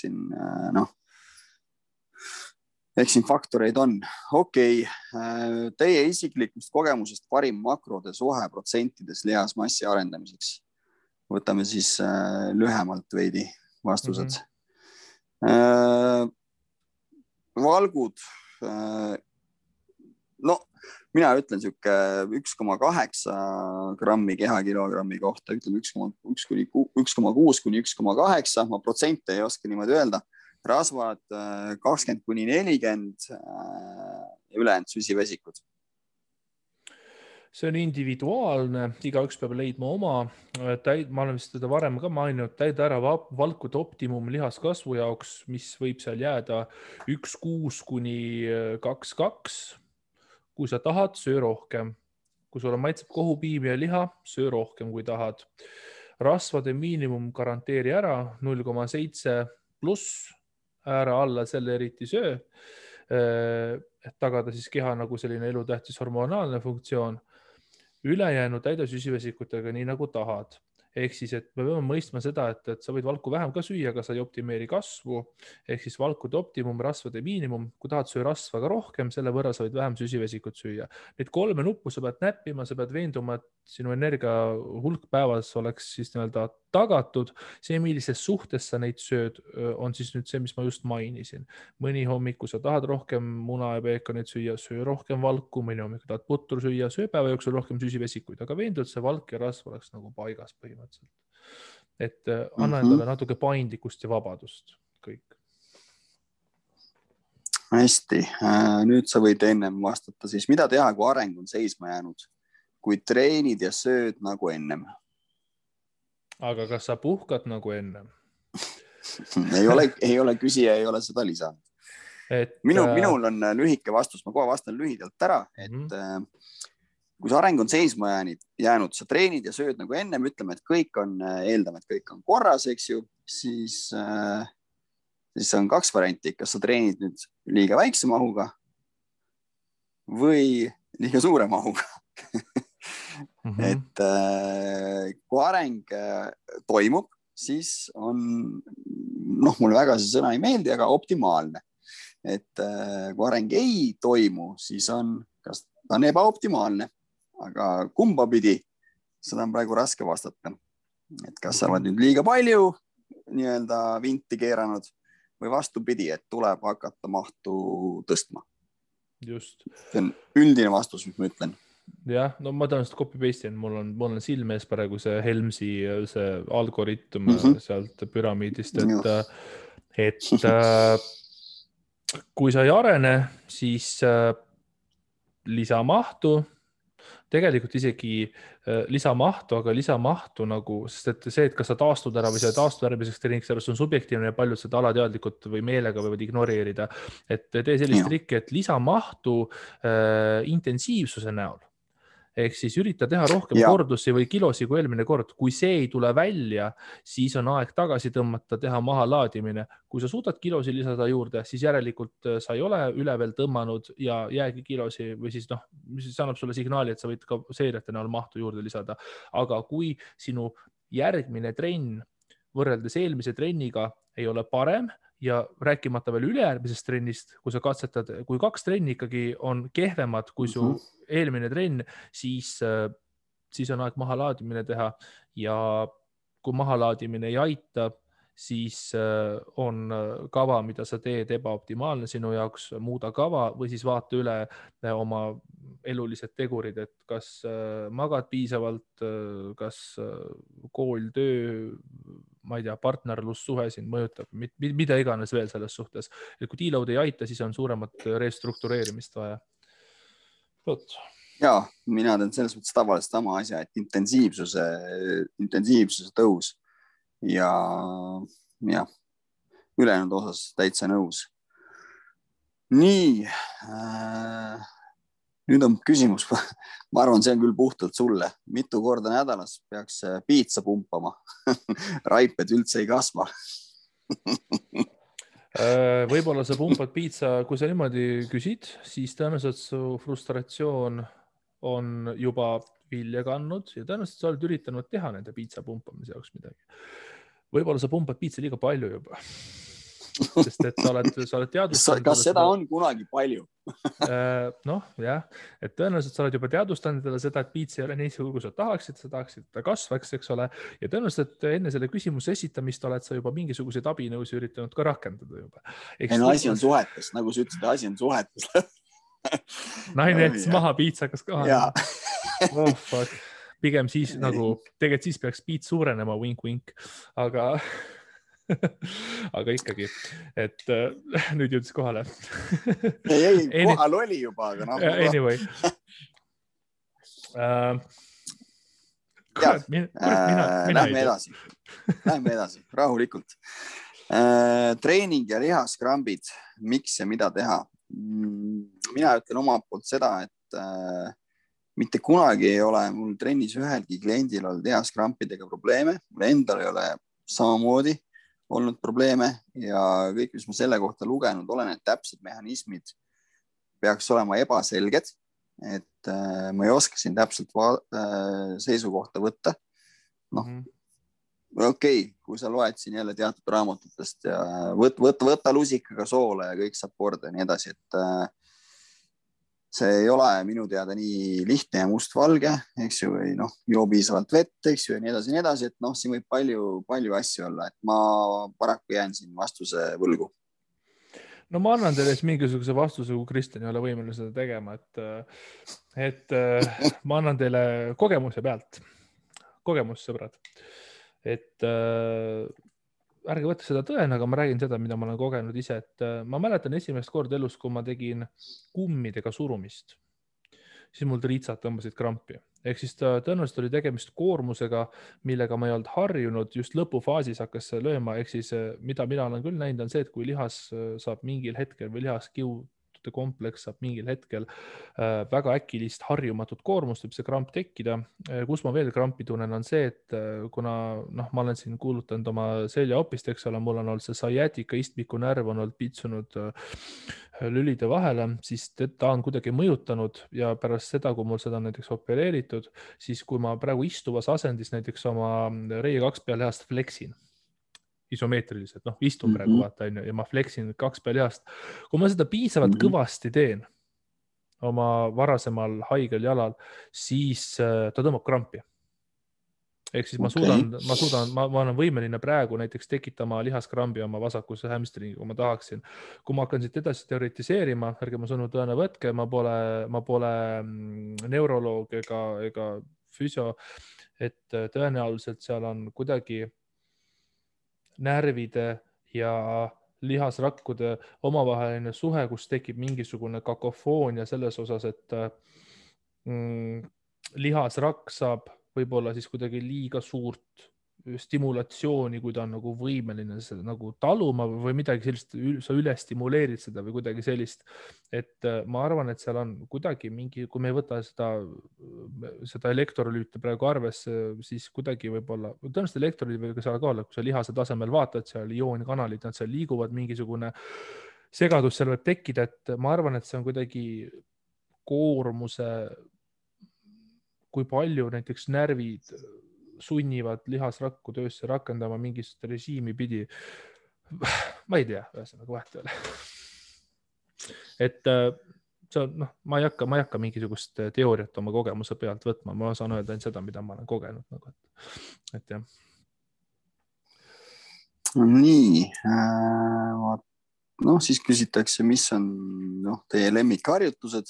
siin faktoreid on. Teie isiklikust kogemusest parim makrode suhe protsentides lihasmassi arendamiseks. Võtame siis lühemalt veidi vastused. Valgud, mina ütlen siuke 1,8 grammi kehakilogrammi kohta, ütleme 1,6 kuni 1,8, ma protsente ei oska niimoodi öelda. Rasvad 20-40 ja ülejäänud süsivesikud. see on individuaalne, igaüks peab leidma oma. Ma olen vist seda varem ka maininud, täida ära valkude optimum lihaskasvu jaoks, mis võib seal jääda 1,6 kuni 2,2. Kui sa tahad, söö rohkem. Kui sulle maitseb kohupiim ja liha, söö rohkem, kui tahad. Rasvade miinimum garanteeri ära 0,7 pluss, ära alla selle eriti söö, et tagada siis keha nagu selline elutähtis hormonaalne funktsioon. Ülejäänu täida süsivesikutega nii nagu tahad. Ehk siis, et me peame mõistma seda, et sa võid valku vähem ka süüa, aga sa ei optimeeri kasvu. Ehk siis valkude optimum, rasvade miinimum. Kui tahad söö rasva ka rohkem, selle võrra sa võid vähem süsivesikut süüa. Need 3 nuppu sa pead näppima, sa pead veenduma, et sinu energia hulk päevas oleks siis nii-öelda tagatud. See, millises suhtes sa neid sööd, on siis nüüd see, mis ma just mainisin. Mõni hommiku sa tahad rohkem muna ja peekonit süüa, söö rohkem valku, mõni hommiku tahad putru süüa, söö päeva jooksul rohkem süsivesikuid, aga veendu, et see valk ja rasv oleks nagu paigas põhimõtteliselt. Et anna endale natuke paindlikkust ja vabadust kõik. Hästi, nüüd sa võid ennem vastata siis, mida teha, kui areng on seisma jäänud, kui treenid ja sööd nagu ennem? Aga kas sa puhkad nagu ennem? ei ole küsija, ei ole seda lisanud. Minul on lühike vastus, ma kohe vastan lühidalt ära, et kui see areng on seisma jäänud, sa treenid ja sööd nagu ennem, ütleme, et kõik on, eeldame, et kõik on korras, eks ju, siis on 2 varianti, kas sa treenid nüüd liiga väikse mahuga või liiga suure mahuga. Et kui areng toimub, siis on, mulle väga see sõna ei meeldi, aga optimaalne. Et kui areng ei toimu, siis kas ta on ebaoptimaalne, aga kumba pidi, seda on praegu raske vastata. Et kas sa oled nüüd liiga palju nii-öelda vinti keeranud või vastupidi, et tuleb hakata mahtu tõstma. Just. See on üldine vastus, mis ma ütlen. Jah, no ma tõenäoliselt copy-paste, mul on silme ees praegu see Helmsi see algoritm sealt püramiidist, et kui sa ei arene, siis lisamahtu, tegelikult isegi lisamahtu, aga lisamahtu nagu, sest et see, et kas sa taastud ära või sa taastud järgmiseks treeniks, sellest on subjektiivne ja paljud seda alateadlikult või meelega võivad ignoreerida, et tee sellist trikki, et lisamahtu intensiivsuse näol. Ehk siis ürita teha rohkem kordusi või kilosi kui eelmine kord. Kui see ei tule välja, siis on aeg tagasi tõmmata, teha maha laadimine. Kui sa suudad kilosi lisada juurde, siis järelikult sa ei ole üle veel tõmmanud ja jäägi kilosi või siis see annab sulle signaali, et sa võid ka seeriate näol mahtu juurde lisada. Aga kui sinu järgmine trenn võrreldes eelmise trenniga ei ole parem ja rääkimata veel ülejärgmisest trennist, kui sa katsetad, kui 2 trenni ikkagi on kehvemad kui su eelmine trenn, siis on aeg mahalaadimine teha ja kui mahalaadimine ei aita, siis on kava, mida sa teed ebaoptimaalne sinu jaoks, muuda kava või siis vaata üle oma elulised tegurid, et kas magad piisavalt, kas kool, töö, ma ei tea, partnerlussuhe sind mõjutab, mida iganes veel selles suhtes. Et kui deload ei aita, siis on suuremat restruktureerimist vaja. Ja, mina teen selles mõttes tavaliselt sama asja, et intensiivsuse tõus ja ülejäänud osas täitsa nõus. Nii, nüüd on küsimus, ma arvan, see on küll puhtalt sulle. Mitu korda nädalas peaks piitsa pumpama? Raiped üldse ei kasva. Võib-olla sa pumpad piitsa, kui sa niimoodi küsid, siis tõenäoliselt su frustratsioon on juba vilja kandnud ja tõenäoliselt sa oled üritanud teha nende piitsa pumpamise jaoks midagi. Võib-olla sa pumpad piitsa liiga palju juba. Sest et sa oled teadvustanud. Kas seda on kunagi palju? Et tõenäoliselt sa oled juba teadvustanud seda, et piitsa ei ole nii suur, kui sa tahaksid, ta kasvaks, eks ole. Ja tõenäoliselt enne selle küsimuse esitamist oled sa juba mingisuguseid abinõusi üritanud ka rakendada juba. Asi on suhetes, nagu sa ütlesid, asi on suhetes. Naine jättis maha piitsakas koha. Oh, fuck. Pigem siis tegelikult siis peaks piits suurenema, wink-wink, aga ikkagi, et nüüd jõudis kohale. Ei, kohal oli juba, aga Anyway. Lähme edasi, rahulikult. Treening ja lihaskrambid, miks ja mida teha? Mina ütlen omalt poolt seda, et mitte kunagi ei ole mul trennis ühelgi kliendil olnud lihaskrampidega probleeme, mul endal ei ole samamoodi olnud probleeme ja kõik, mis ma selle kohta lugenud olen, et täpsed mehhanismid peaks olema ebaselged, et ma ei oska siin täpselt seisukohta võtta. Noh, okei, kui sa loed siin jälle teatud raamatutest ja võta lusikaga soole ja kõik saab korda ja nii edasi, et see ei ole minu teada nii lihtne ja mustvalge, eks ju, või joo piisavalt vett, eks ju, ja nii edasi, et siin võib palju asju olla, et ma paraku jään siin vastuse võlgu. No ma annan teile mingisuguse vastuse, kui Kristjan ei ole võimeline seda tegema, et ma annan teile kogemuse pealt. Kogemus, sõbrad. Et ärge võtta seda tõena, aga ma räägin seda, mida ma olen kogenud ise, et ma mäletan esimest korda elus, kui ma tegin kummidega surumist, siis mul triitsad tõmbasid krampi. Ehk siis tõenäoliselt oli tegemist koormusega, millega ma ei olnud harjunud, just lõpufaasis hakkas lööma. Ehk siis mida mina olen küll näinud on see, et kui lihas saab mingil hetkel või lihaskiutude kompleks saab mingil hetkel väga äkilist harjumatut koormust, võib see kramp tekkida. Kus ma veel krampi tunnen on see, et kuna ma olen siin kuulutanud oma seljaopist, eks ole, mul on olnud see sciatica istmiku närv on olnud pitsunud lülide vahele, siis ta on kuidagi mõjutanud ja pärast seda, kui mul seda näiteks opereeritud, siis kui ma praegu istuvas asendis näiteks oma reie 2 pealihast fleksin, isomeetriliselt, istun praegu vaata ja ma fleksin 2 pealihast. Kui ma seda piisavalt kõvasti teen oma varasemal haigel jalal, siis ta tõmbab krampi. Ehk siis ma olen võimeline praegu näiteks tekitama lihaskrambi oma vasakusse hamstringi, kui ma tahaksin. Kui ma hakkan siit edasi teoritiseerima, ärge ma sõnu tõena võtke, ma pole neuroloog ega füsio, et tõenäoliselt seal on kuidagi närvide ja lihasrakkude omavaheline suhe, kus tekib mingisugune kakofoonia selles osas, et lihasrakk saab võib-olla siis kuidagi liiga suurt stimulatsiooni, kui ta on nagu võimeline seda nagu taluma või midagi sellist, sa üle stimuleerid seda või kuidagi sellist, et ma arvan, et seal on kuidagi mingi, kui me ei võta seda elektrolüüte praegu arvesse, siis kuidagi võib-olla, tõenäoliselt elektrolüüt võib seal ka olla, kui sa lihase tasemel vaatad, seal ioonkanalid, nad seal liiguvad, mingisugune segadus seal võib tekkida, et ma arvan, et see on kuidagi koormuse, kui palju näiteks närvid sunnivad lihasrakku töösse rakendama mingist režiimi pidi. Ma ei tea, ühesõnaga vahet ei ole. Et see on, ma ei hakka mingisugust teooriat oma kogemuse pealt võtma, ma saan öelda ainult seda, mida ma olen kogenud. Et jah. Nii, siis küsitakse, mis on teie lemmikharjutused.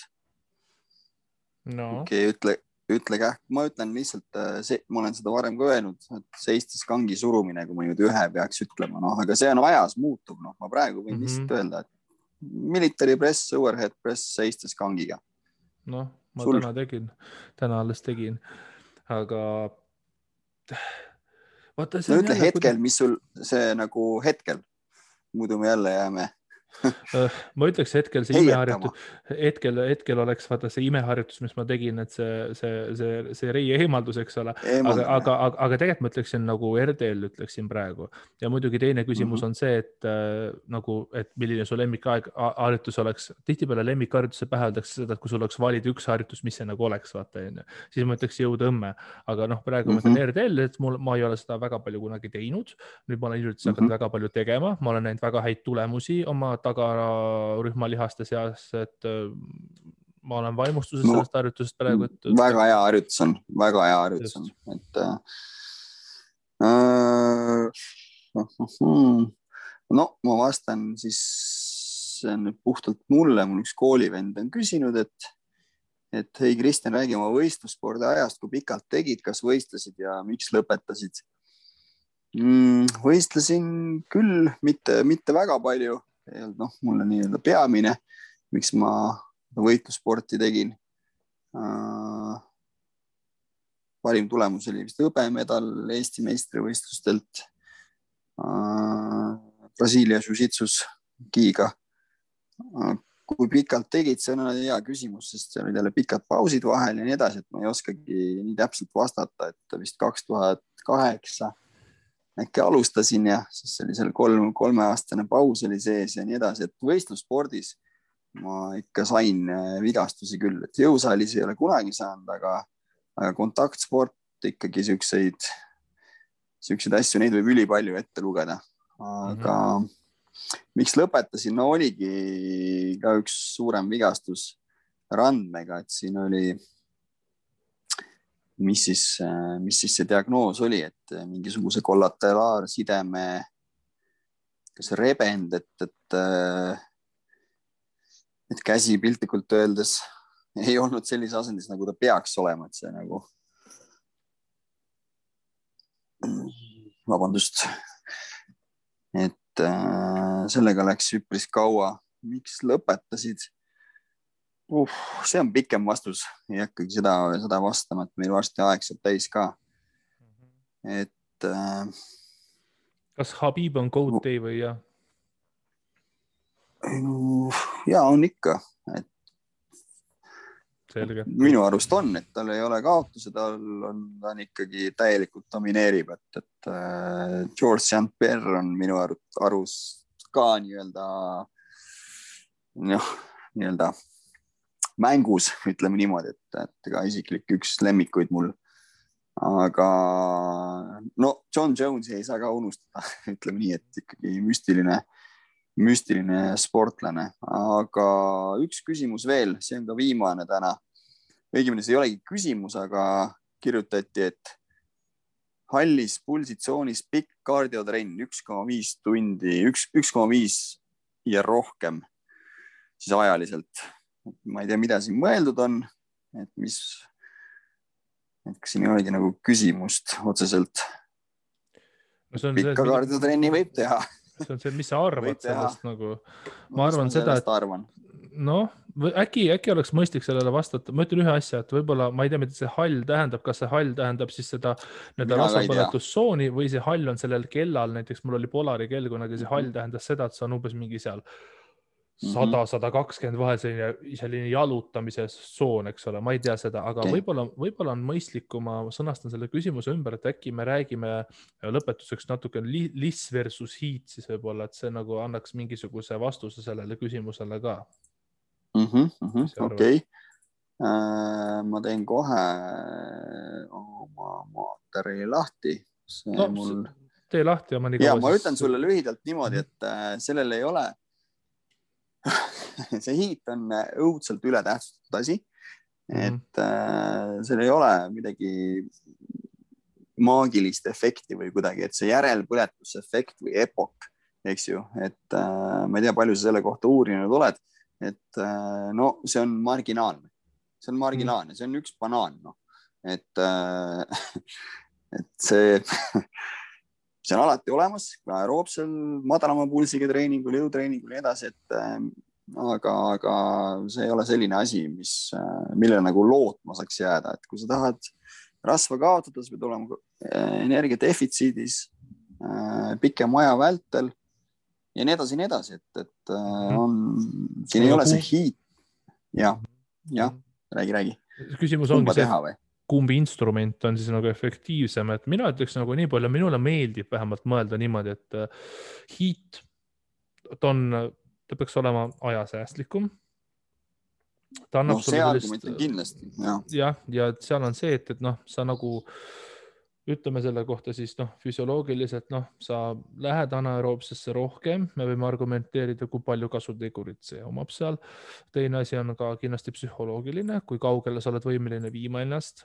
Okei, ütle kähk, ma ütlen lihtsalt, ma olen seda varem ka öelnud, et seistes kangi surumine, kui ma nüüd ühe peaks ütlema, aga see on ajas muutub, ma praegu võin lihtsalt öelda, et military press, overhead press seistes kangiga. Ma täna alles tegin, aga vaata, see on ütle hetkel, mis sul see nagu hetkel, muidu me jälle jääme. Ma ütleks hetkel see imeharjutus, hetkel oleks vaata see imeharjutus, mis ma tegin, et see reie eemaldus, eks ole, aga tegelikult ma ütleksin nagu RDL ütleksin praegu ja muidugi teine küsimus on see, et milline su lemmikharjutus oleks, tihtipeale lemmikharjutuse pähe öeldakse seda, et kui sul oleks valida üks harjutus, mis see nagu oleks, vaata, siis ma ütleks jõutõmme, aga praegu ma ütlen RDL, et ma ei ole seda väga palju kunagi teinud, nüüd ma olen hiljuti hakanud väga palju tegema, ma olen näinud väga häid tulemusi oma tagarühmalihaste seas, et ma olen vaimustuses sellest harjutusest praegu. Väga hea harjutus on, et ma vastan siis nüüd puhtalt mulle, mul üks koolivend on küsinud, et hei Kristjan, räägi oma võistlusspordi ajast, kui pikalt tegid, kas võistlesid ja miks lõpetasid? Võistlesin küll, mitte väga palju. Mul on nii-öelda peamine, miks ma võitlussporti tegin. parim tulemus oli vist hõbemedal Eesti meistrivõistlustelt Brasiilia Jiu-Jitsus giga. Kui pikalt tegid, see on hea küsimus, sest see olid jälle pikad pausid vahel ja nii edasi, et ma ei oskagi nii täpselt vastata, et vist 2008 äkki alustasin ja siis oli seal 3-aastane paus oli sees ja nii edasi, et võistlusspordis ma ikka sain vigastusi küll, et jõusaalis ei ole kunagi saanud, aga kontaktsport ikkagi siukseid asju, neid võib ülipalju ette lugeda, aga miks lõpetasin? No oligi ka üks suurem vigastus randmega, et siin oli, mis siis see diagnoos oli, et mingisuguse kollateraarsideme kas rebend, et käsi piltlikult öeldes ei olnud sellise asendis, nagu ta peaks olema, et see nagu vabandust, et sellega läks üpris kaua. Miks lõpetasid? See on pikem vastus. Ei hakkagi seda vastama, et meil varsti aeg saab täis ka. Et kas Habib on GOAT day või jah? Ja on ikka. Selge. Minu arust on, et tal ei ole kaotuse, ta on ikkagi täielikult domineerib, et George St. Pierre on minu arust ka nii-öelda mängus, ütleme niimoodi, et ka isiklik üks lemmikuid mul. Aga no John Jones'i ei saa ka unustada, ütleme nii, et ikkagi müstiline sportlane, aga üks küsimus veel, see on ka viimane täna. Õigemini see ei olegi küsimus, aga kirjutati, et hallis pulsitsoonis pikk kardiotrenn 1,5 tundi, 1,5 ja rohkem siis ajaliselt. Ma ei tea, mida siin mõeldud on, et kas siin ei olegi nagu küsimust otseselt. No pikka kardiotrenni võib teha. See on see, mis sa arvad sellest nagu? Ma arvan seda, et äkki oleks mõistlik sellele vastata. Ma ütlen ühe asja, et võib-olla, ma ei tea, mida see hall tähendab, kas see hall tähendab siis seda rasvapõletussooni või see hall on sellel kellal, näiteks mul oli Polari kell, kui see hall tähendas seda, et see on umbes mingi seal 100-120 vahel selline jalutamise soon, eks ole, ma ei tea seda, aga võib-olla on mõistlik, kui ma sõnastan selle küsimuse ümber, et äkki me räägime lõpetuseks natuke liss versus heat, siis võib-olla, et see nagu annaks mingisuguse vastuse sellele küsimusele ka. Okei. Ma teen kohe oma materjali lahti. Tee lahti. Ma ütlen sulle lühidalt niimoodi, et sellel ei ole see hiit on õudselt ületähtsustatud asi, et seal ei ole midagi maagilist efekti või kuidagi, et see järelpõletusefekt või epok, eks ju, et ma ei tea, palju sa selle kohta uurinud oled, et no see on marginaalne, see on üks banaan, et see on alati olemas, aeroobsel, madalama pulsiga treeningul, jõutreeningul ja edasi, aga see ei ole selline asi, mille nagu lootma saaks jääda, et kui sa tahad rasva kaotada, sa pead olema energiadefitsiidis pikem aja vältel ja nii edasi, et siin ei ole see hiit. Ja, räägi. Küsimus ongi see, kumbi instrument on siis nagu efektiivsem, et mina ütleks nagu nii palju, minule meeldib vähemalt mõelda niimoodi, et hiit, ta peaks olema ajasäästlikum. See argument on kindlasti. Ja seal on see, et sa nagu ütleme selle kohta siis füsioloogiliselt, sa lähed anaeroobsesse rohkem, me võime argumenteerida, kui palju kasutegurit see omab seal. Teine asi on ka kindlasti psühholoogiline, kui kaugele sa oled võimeline viima ennast.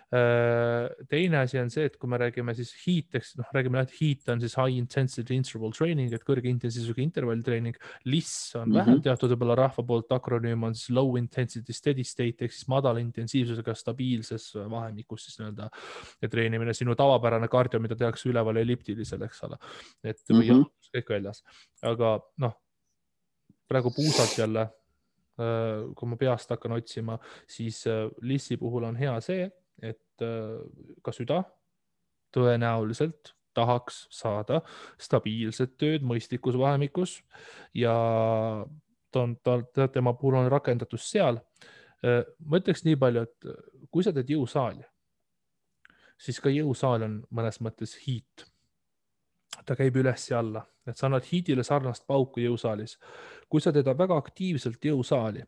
Teine asi on see, et kui me räägime siis hiiteks, räägime, et hiit on siis high intensity interval training, et kõrge intensiivsusega intervalltreening. Liss on vähem teatud võib-olla rahva poolt, akronüüm on siis low intensity steady state, ehk siis madala intensiivsusega stabiilses vahemikus siis nii-öelda treenimine, sinu tavapärane kardio, mida tehakse üleval elliptilisel, eks ole. Et või kõik väljas. Aga praegu puusad jälle, kui ma peast hakkan otsima, siis lissi puhul on hea see, et et ka süda tõenäoliselt tahaks saada stabiilset tööd mõistlikus vahemikus ja tema puhul on rakendatus seal. Ma ütleks nii palju, et kui sa teed jõusaali, siis ka jõusaal on mõnes mõttes hiit. Ta käib üles ja alla, et sa annad hiidile sarnast pauku jõusaalis. Kui sa teed väga aktiivselt jõusaali,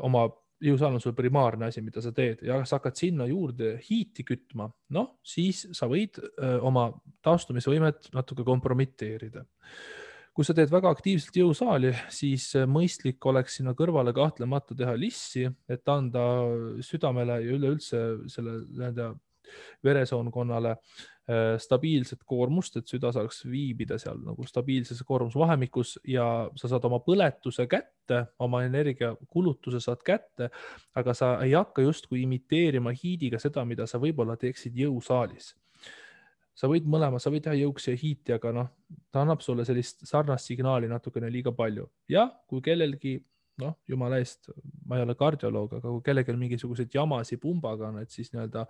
oma jõusaal on sul primaarne asi, mida sa teed ja sa hakkad sinna juurde hiiti kütma, noh, siis sa võid oma taastumisvõimet natuke kompromiteerida. Kui sa teed väga aktiivselt jõusaali, siis mõistlik oleks sinna kõrvale kahtlemata teha lissi, et anda südamele ja üleüldse selle veresoonkonnale stabiilset koormust, et süda saaks viibida seal nagu stabiilses koormusvahemikus ja sa saad oma põletuse kätte, oma energiakulutuse saad kätte, aga sa ei hakka justkui imiteerima hiidiga seda, mida sa võib-olla teeksid jõusaalis. Sa võid mõlema, sa võid teha jõuksi ja hiiti, aga noh, ta annab sulle sellist sarnast signaali natukene liiga palju. Ja kui kellelgi, noh, jumala eest, ma ei ole kardioloog, aga kui kellelgi mingisugused jamasi pumbaga on, et siis nii-öelda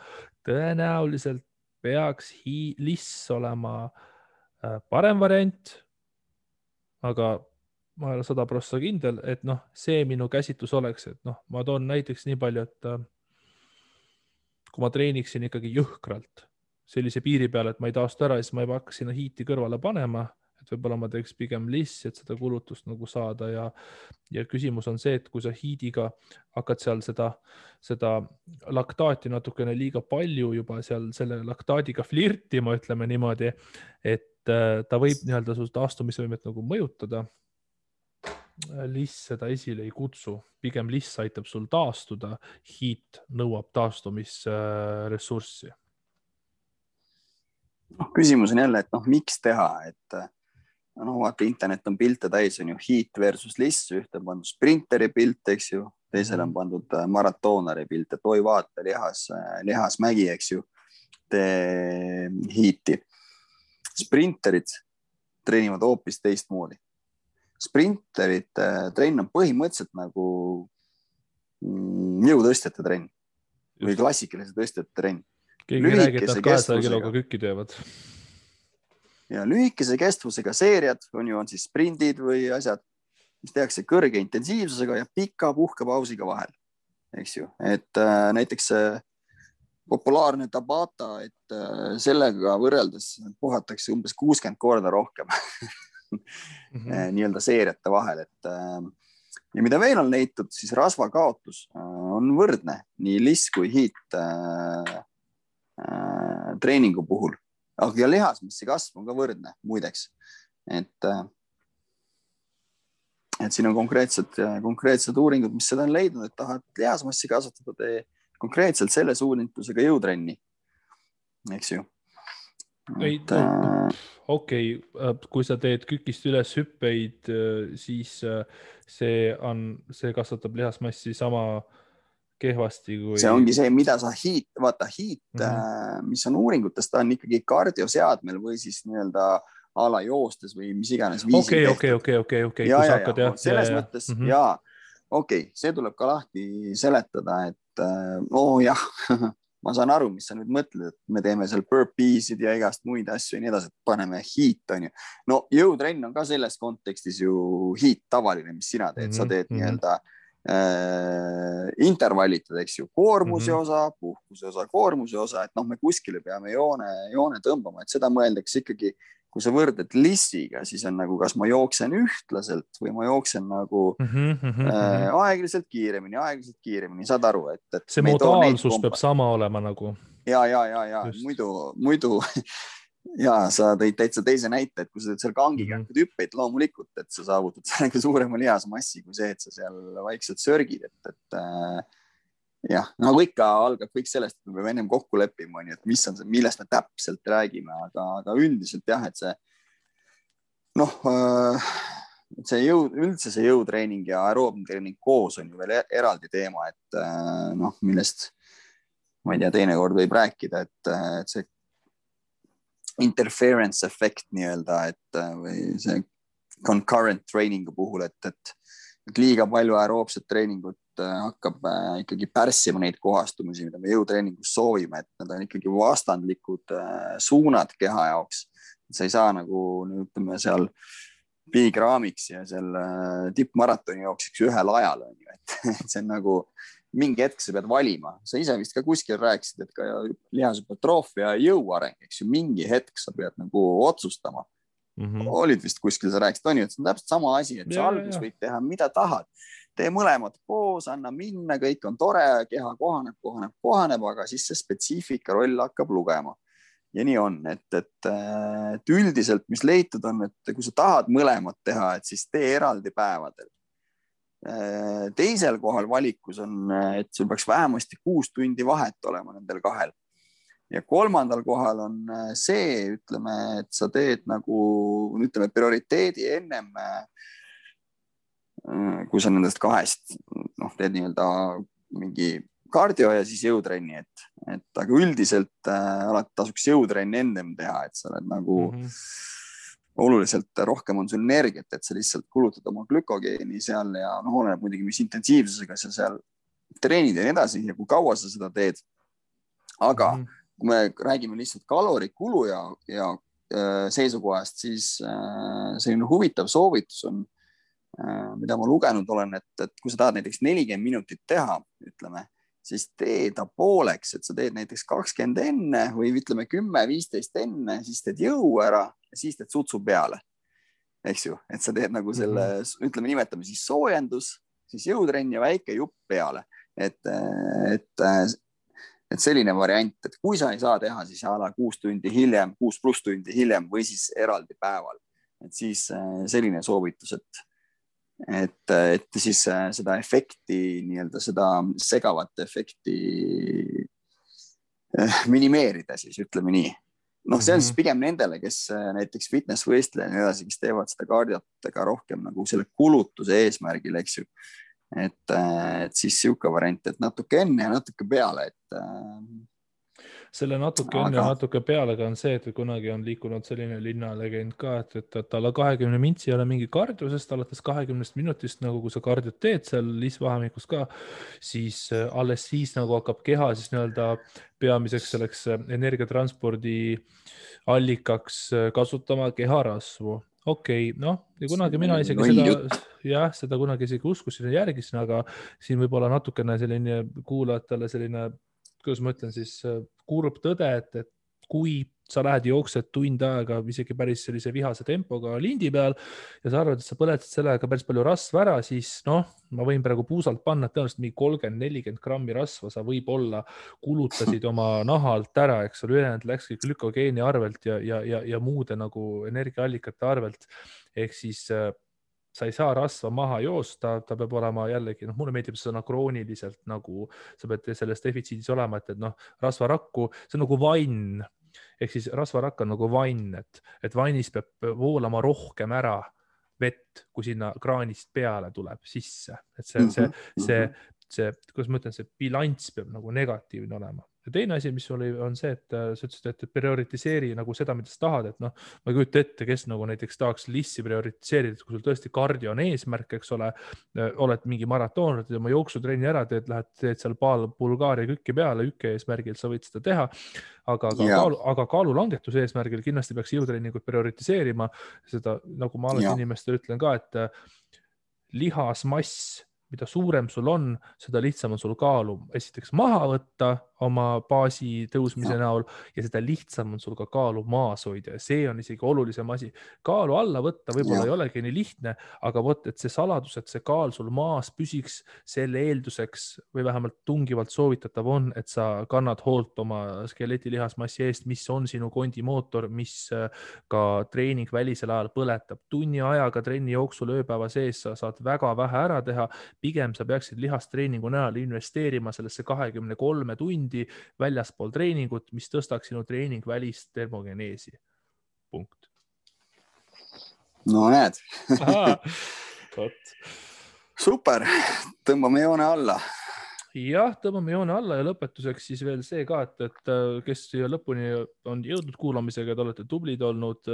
tõenäoliselt peaks liss olema parem variant, aga ma ei ole 100% kindel, et noh, see minu käsitlus oleks, et noh, ma toon näiteks nii palju, et kui ma treeniksin ikkagi jõhkralt sellise piiri peale, et ma ei taastu ära, siis ma ei hakka sinna hiiti kõrvale panema, et võib-olla ma teeks pigem lissi, et seda kulutust nagu saada ja küsimus on see, et kui sa hiidiga hakkad seal seda laktaati natukene liiga palju juba seal selle laktaadiga flirtima, ütleme niimoodi, et ta võib nii-öelda su taastumisvõimet nagu mõjutada. Liss seda esile ei kutsu, pigem liss aitab sul taastuda, hiit nõuab taastumisressurssi. Küsimus on jälle, et noh, miks teha, et no vaata, internet on pilte täis, on ju hiit versus liss, ühte on pandud sprinteri pilt, eks ju, teisele on pandud maratoonari pilt, et oi vaata, lihasmägi, eks ju, tee hiiti. Sprinterid treenivad hoopis teistmoodi. Sprinterid trenn on põhimõtteliselt nagu jõutõstjate trenn või klassikalise tõstjate trenn. Keegi räägib, et 200 kiloga kükki teevad. Ja lühikese kestvusega seeriad on siis sprindid või asjad, mis tehakse kõrge intensiivsusega ja pika puhkepausiga vahel. Eks ju, et näiteks populaarne Tabata, et sellega võrreldes puhatakse umbes 60 korda rohkem nii-öelda seeriate vahel, et ja mida veel on leitud, siis rasvakaotus on võrdne nii liss kui hiit treeningu puhul, aga lihasmassi kasv on ka võrdne muideks, et siin on konkreetsed uuringud, mis seda on leidnud, et tahad lihasmassi kasvatada, tee konkreetselt selle suunitlusega jõutrenni, eks ju. Okei, kui sa teed kükist üles hüppeid, siis see kasvatab lihasmassi sama kehvasti kui... See ongi see, mida sa hiit, mis on uuringutes, ta on ikkagi kardioseadmel või siis nii-öelda ala joostes või mis iganes viisil Okei. Selles mõttes, see tuleb ka lahti seletada, et ma saan aru, mis sa nüüd mõtled, et me teeme seal burpeesid ja igast muid asju ja nii edasi, et paneme hiit, on ju. No jõutrenn on ka selles kontekstis ju hiit tavaline, mis sina teed, sa teed nii-öelda intervallitad, eks ju, koormuse osa, puhkuse osa, koormuse osa, et noh, me kuskile peame joone tõmbama, et seda mõeldakse ikkagi, kui sa võrded lissiga, siis on nagu, kas ma jooksen ühtlaselt või ma jooksen nagu aeglaselt kiiremini, saad aru, et see modaalsus peab sama olema nagu. Ja, muidu ja sa tõid täitsa teise näite, et kui sa teed seal kangiga hüppeid loomulikult, et sa saavutad sellega suurema lihasmassi kui see, et sa seal vaikselt sörgid, et jah, nagu ikka algab kõik sellest, et me peame ennem kokku leppima, et mis on see, millest me täpselt räägime, aga üldiselt jah, et see üldse see jõutreening ja aeroobtreening koos on ju veel eraldi teema, et millest ma ei tea, teinekord võib rääkida, et see interference efekt nii-öelda, et või see concurrent trainingu puhul, et liiga palju aeroobset treeningut hakkab ikkagi pärssima neid kohastumisi, mida me jõutreeningus soovime, et need on ikkagi vastandlikud suunad keha jaoks. Sa ei saa nagu, ütleme seal Big Ramiks ja seal tippmaratoni jooksiks ühel ajal, et see on nagu mingi hetk sa pead valima. Sa ise vist ka kuskil rääkisid, et ka lihashüpertroofia ja jõuareng, eks ju, mingi hetk sa pead nagu otsustama. Olid vist kuskil, sa rääkisid, on ju, et see on täpselt sama asi, et sa algus võid teha, mida tahad. Tee mõlemad koos, anna minna, kõik on tore, keha kohaneb, aga siis see spetsiifika roll hakkab lugema. Ja nii on, et üldiselt, mis leitud on, et kui sa tahad mõlemad teha, et siis tee eraldi päevadel. Teisel kohal valikus on, et sul peaks vähemasti 6 tundi vahet olema nendel kahel. Ja kolmandal kohal on see, ütleme, et sa teed nagu, ütleme, prioriteedi ennem, kui sa nendest kahest teed nii-öelda mingi kardio ja siis jõutrenni, et aga üldiselt alati tasuks jõutrenni ennem teha, et sa oled nagu oluliselt rohkem on sul energiat, et sa lihtsalt kulutad oma glükogeeni seal ja oleneb muidugi, mis intensiivsusega sa seal treenid ja nii edasi ja kui kaua sa seda teed. Aga kui me räägime lihtsalt kalorikulu ja seisukohast, siis selline huvitav soovitus on, mida ma lugenud olen, et kui sa tahad näiteks 40 minutit teha, ütleme, siis tee ta pooleks, et sa teed näiteks 20 enne või ütleme 10-15 enne, siis teed jõu ära ja siis teed sutsu peale. Eks ju, et sa teed nagu selle, ütleme, nimetame siis soojendus, siis jõutrenn ja väike jupp peale. Et selline variant, et kui sa ei saa teha, siis 6 pluss tundi hiljem või siis eraldi päeval. Et siis selline soovitus, et siis seda efekti, nii-öelda seda segavat efekti minimeerida siis, ütleme nii. See on siis pigem nendele, kes näiteks fitnessvõistleja ja nii edasi, kes teevad seda kardiotega rohkem nagu selle kulutuse eesmärgil, eks ju. Et siis siuke variant, et natuke enne ja natuke peale, selle natuke enne ja natuke pealega on see, et kunagi on liikunud selline linnalegend ka, et alla 20 mintsi ei ole mingi kardio, sest alates 20 minutist, nagu kui sa kardiot teed seal liisvahemikus ka, siis alles siis nagu hakkab keha siis nii-öelda peamiseks selleks energiatranspordi allikaks kasutama keharasvu. Okei, ja kunagi mina isegi seda kunagi isegi uskusin ja järgisin, aga siin võib olla natukene selline kuulajatele selline, kuidas ma ütlen siis, kurb tõde, et kui sa lähed jooksed tund aega isegi päris sellise vihase tempoga lindi peal ja sa arvad, et sa põletad sellega päris palju rasva ära, siis ma võin praegu puusalt panna, et tõenäoliselt mingi 30-40 grammi rasva sa võib-olla kulutasid oma nahalt ära, eks ole, ülejäänud läkski glükogeeni arvelt ja muude nagu energiaallikate arvelt. Ehk siis sa ei saa rasva maha joosta, ta peab olema jällegi, mulle meeldib sõna krooniliselt, nagu sa pead selles defitsiidis olema, et rasvarakku, see on nagu vann. Ehk siis rasvarakk on nagu vann, et vannis peab voolama rohkem ära vett, kui sinna kraanist peale tuleb sisse. Et see, kuidas ma ütlen, see bilanss peab nagu negatiivne olema. Ja teine asi, mis on see, et sa ütlesid, et prioritiseeri nagu seda, mida sa tahad, et ma ei kujuta ette, kes nagu näiteks tahaks lissi prioritiseerida, et kui sul tõesti kardio on eesmärk, eks ole, oled mingi maratoon, oma jooksutrenni ära teed seal Bulgaaria kükki peale, ükke eesmärgil sa võid seda teha, aga kaalulangetuse eesmärgil kindlasti peaks jõutreeningut prioritiseerima, seda nagu ma alati inimestele ütlen ka, et lihasmass, mida suurem sul on, seda lihtsam on sul kaalu esiteks maha võtta oma baasi tõusmise näol ja seda lihtsam on sul ka kaalu maas hoida ja see on isegi olulisem asi. Kaalu alla võtta võib-olla ei olegi nii lihtne, aga et see saladus, et see kaal sul maas püsiks, selle eelduseks või vähemalt tungivalt soovitatav on, et sa kannad hoolt oma skeleti lihasmassi eest, mis on sinu kondimootor, mis ka treening välisel ajal põletab. Tunni ajaga trenni jooksul ööpäeva sees sa saad väga vähe ära teha, pigem sa peaksid lihastreeningu näol investeerima sellesse 23 tundi väljaspool treeningut, mis tõstaks sinu treening välist termogeneesi. Punkt. No näed. Aha, Super, tõmbame joone alla. jah, tõmbame joone alla ja lõpetuseks siis veel see ka, et kes siia lõpuni on jõudnud kuulamisega, te olete tublid olnud.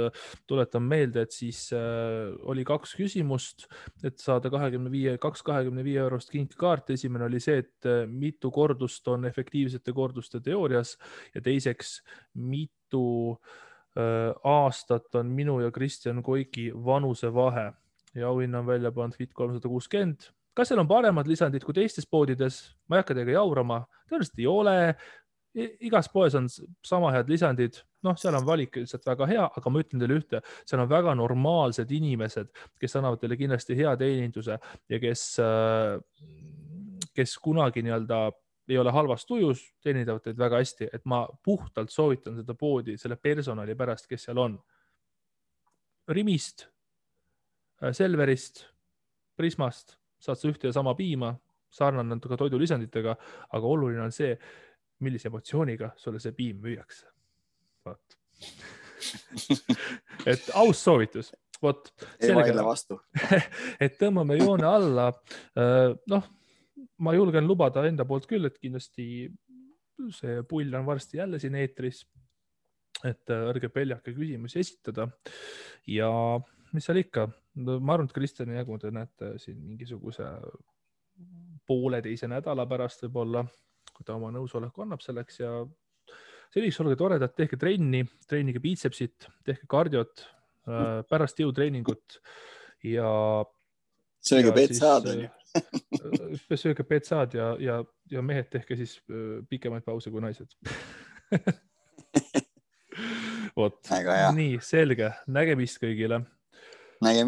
Tuletan meelde, et siis oli 2 küsimust, et saada 25 eurost kinkekaart. Esimene oli see, et mitu kordust on efektiivsete korduste teoorias ja teiseks, mitu aastat on minu ja Kristjan Koiki vanusevahe ja auhinna on välja pannud Fit 360. Kas seal on paremad lisandid kui teistes poodides? Ma ei hakka teiega jaurama. Tõenäoliselt ei ole. Igas poes on sama head lisandid. Noh, seal on valik lihtsalt väga hea, aga ma ütlen teile ühte, seal on väga normaalsed inimesed, kes annavad teile kindlasti hea teeninduse ja kes kunagi nii-öelda ei ole halvas tujus, teenindavad teid väga hästi, et ma puhtalt soovitan seda poodi selle personali pärast, kes seal on. Rimist, Selverist, Prismast saad sa ühte ja sama piima, sarnane natuke toidulisanditega, aga oluline on see, millise emotsiooniga sulle see piim müüakse. Vaat. Et aus soovitus. Vot, ei vaidle vastu. Et tõmbame joone alla. Noh, ma julgen lubada enda poolt küll, et kindlasti see pull on varsti jälle siin eetris, et ärge peljake küsimusi esitada ja mis seal ikka, ma arvan, et Kristjani jagu te näete siin mingisuguse pooleteise nädala pärast võib-olla, kui ta oma nõusoleku annab selleks ja selliseks olge toredad, tehke trenni, treenige biitsepsit, tehke kardiot, pärast jõutreeningut ja sööge petsaad. Sööge petsaad ja mehed tehke siis pikemaid pause kui naised. Vot, nii selge, nägemist kõigile. Nägemist.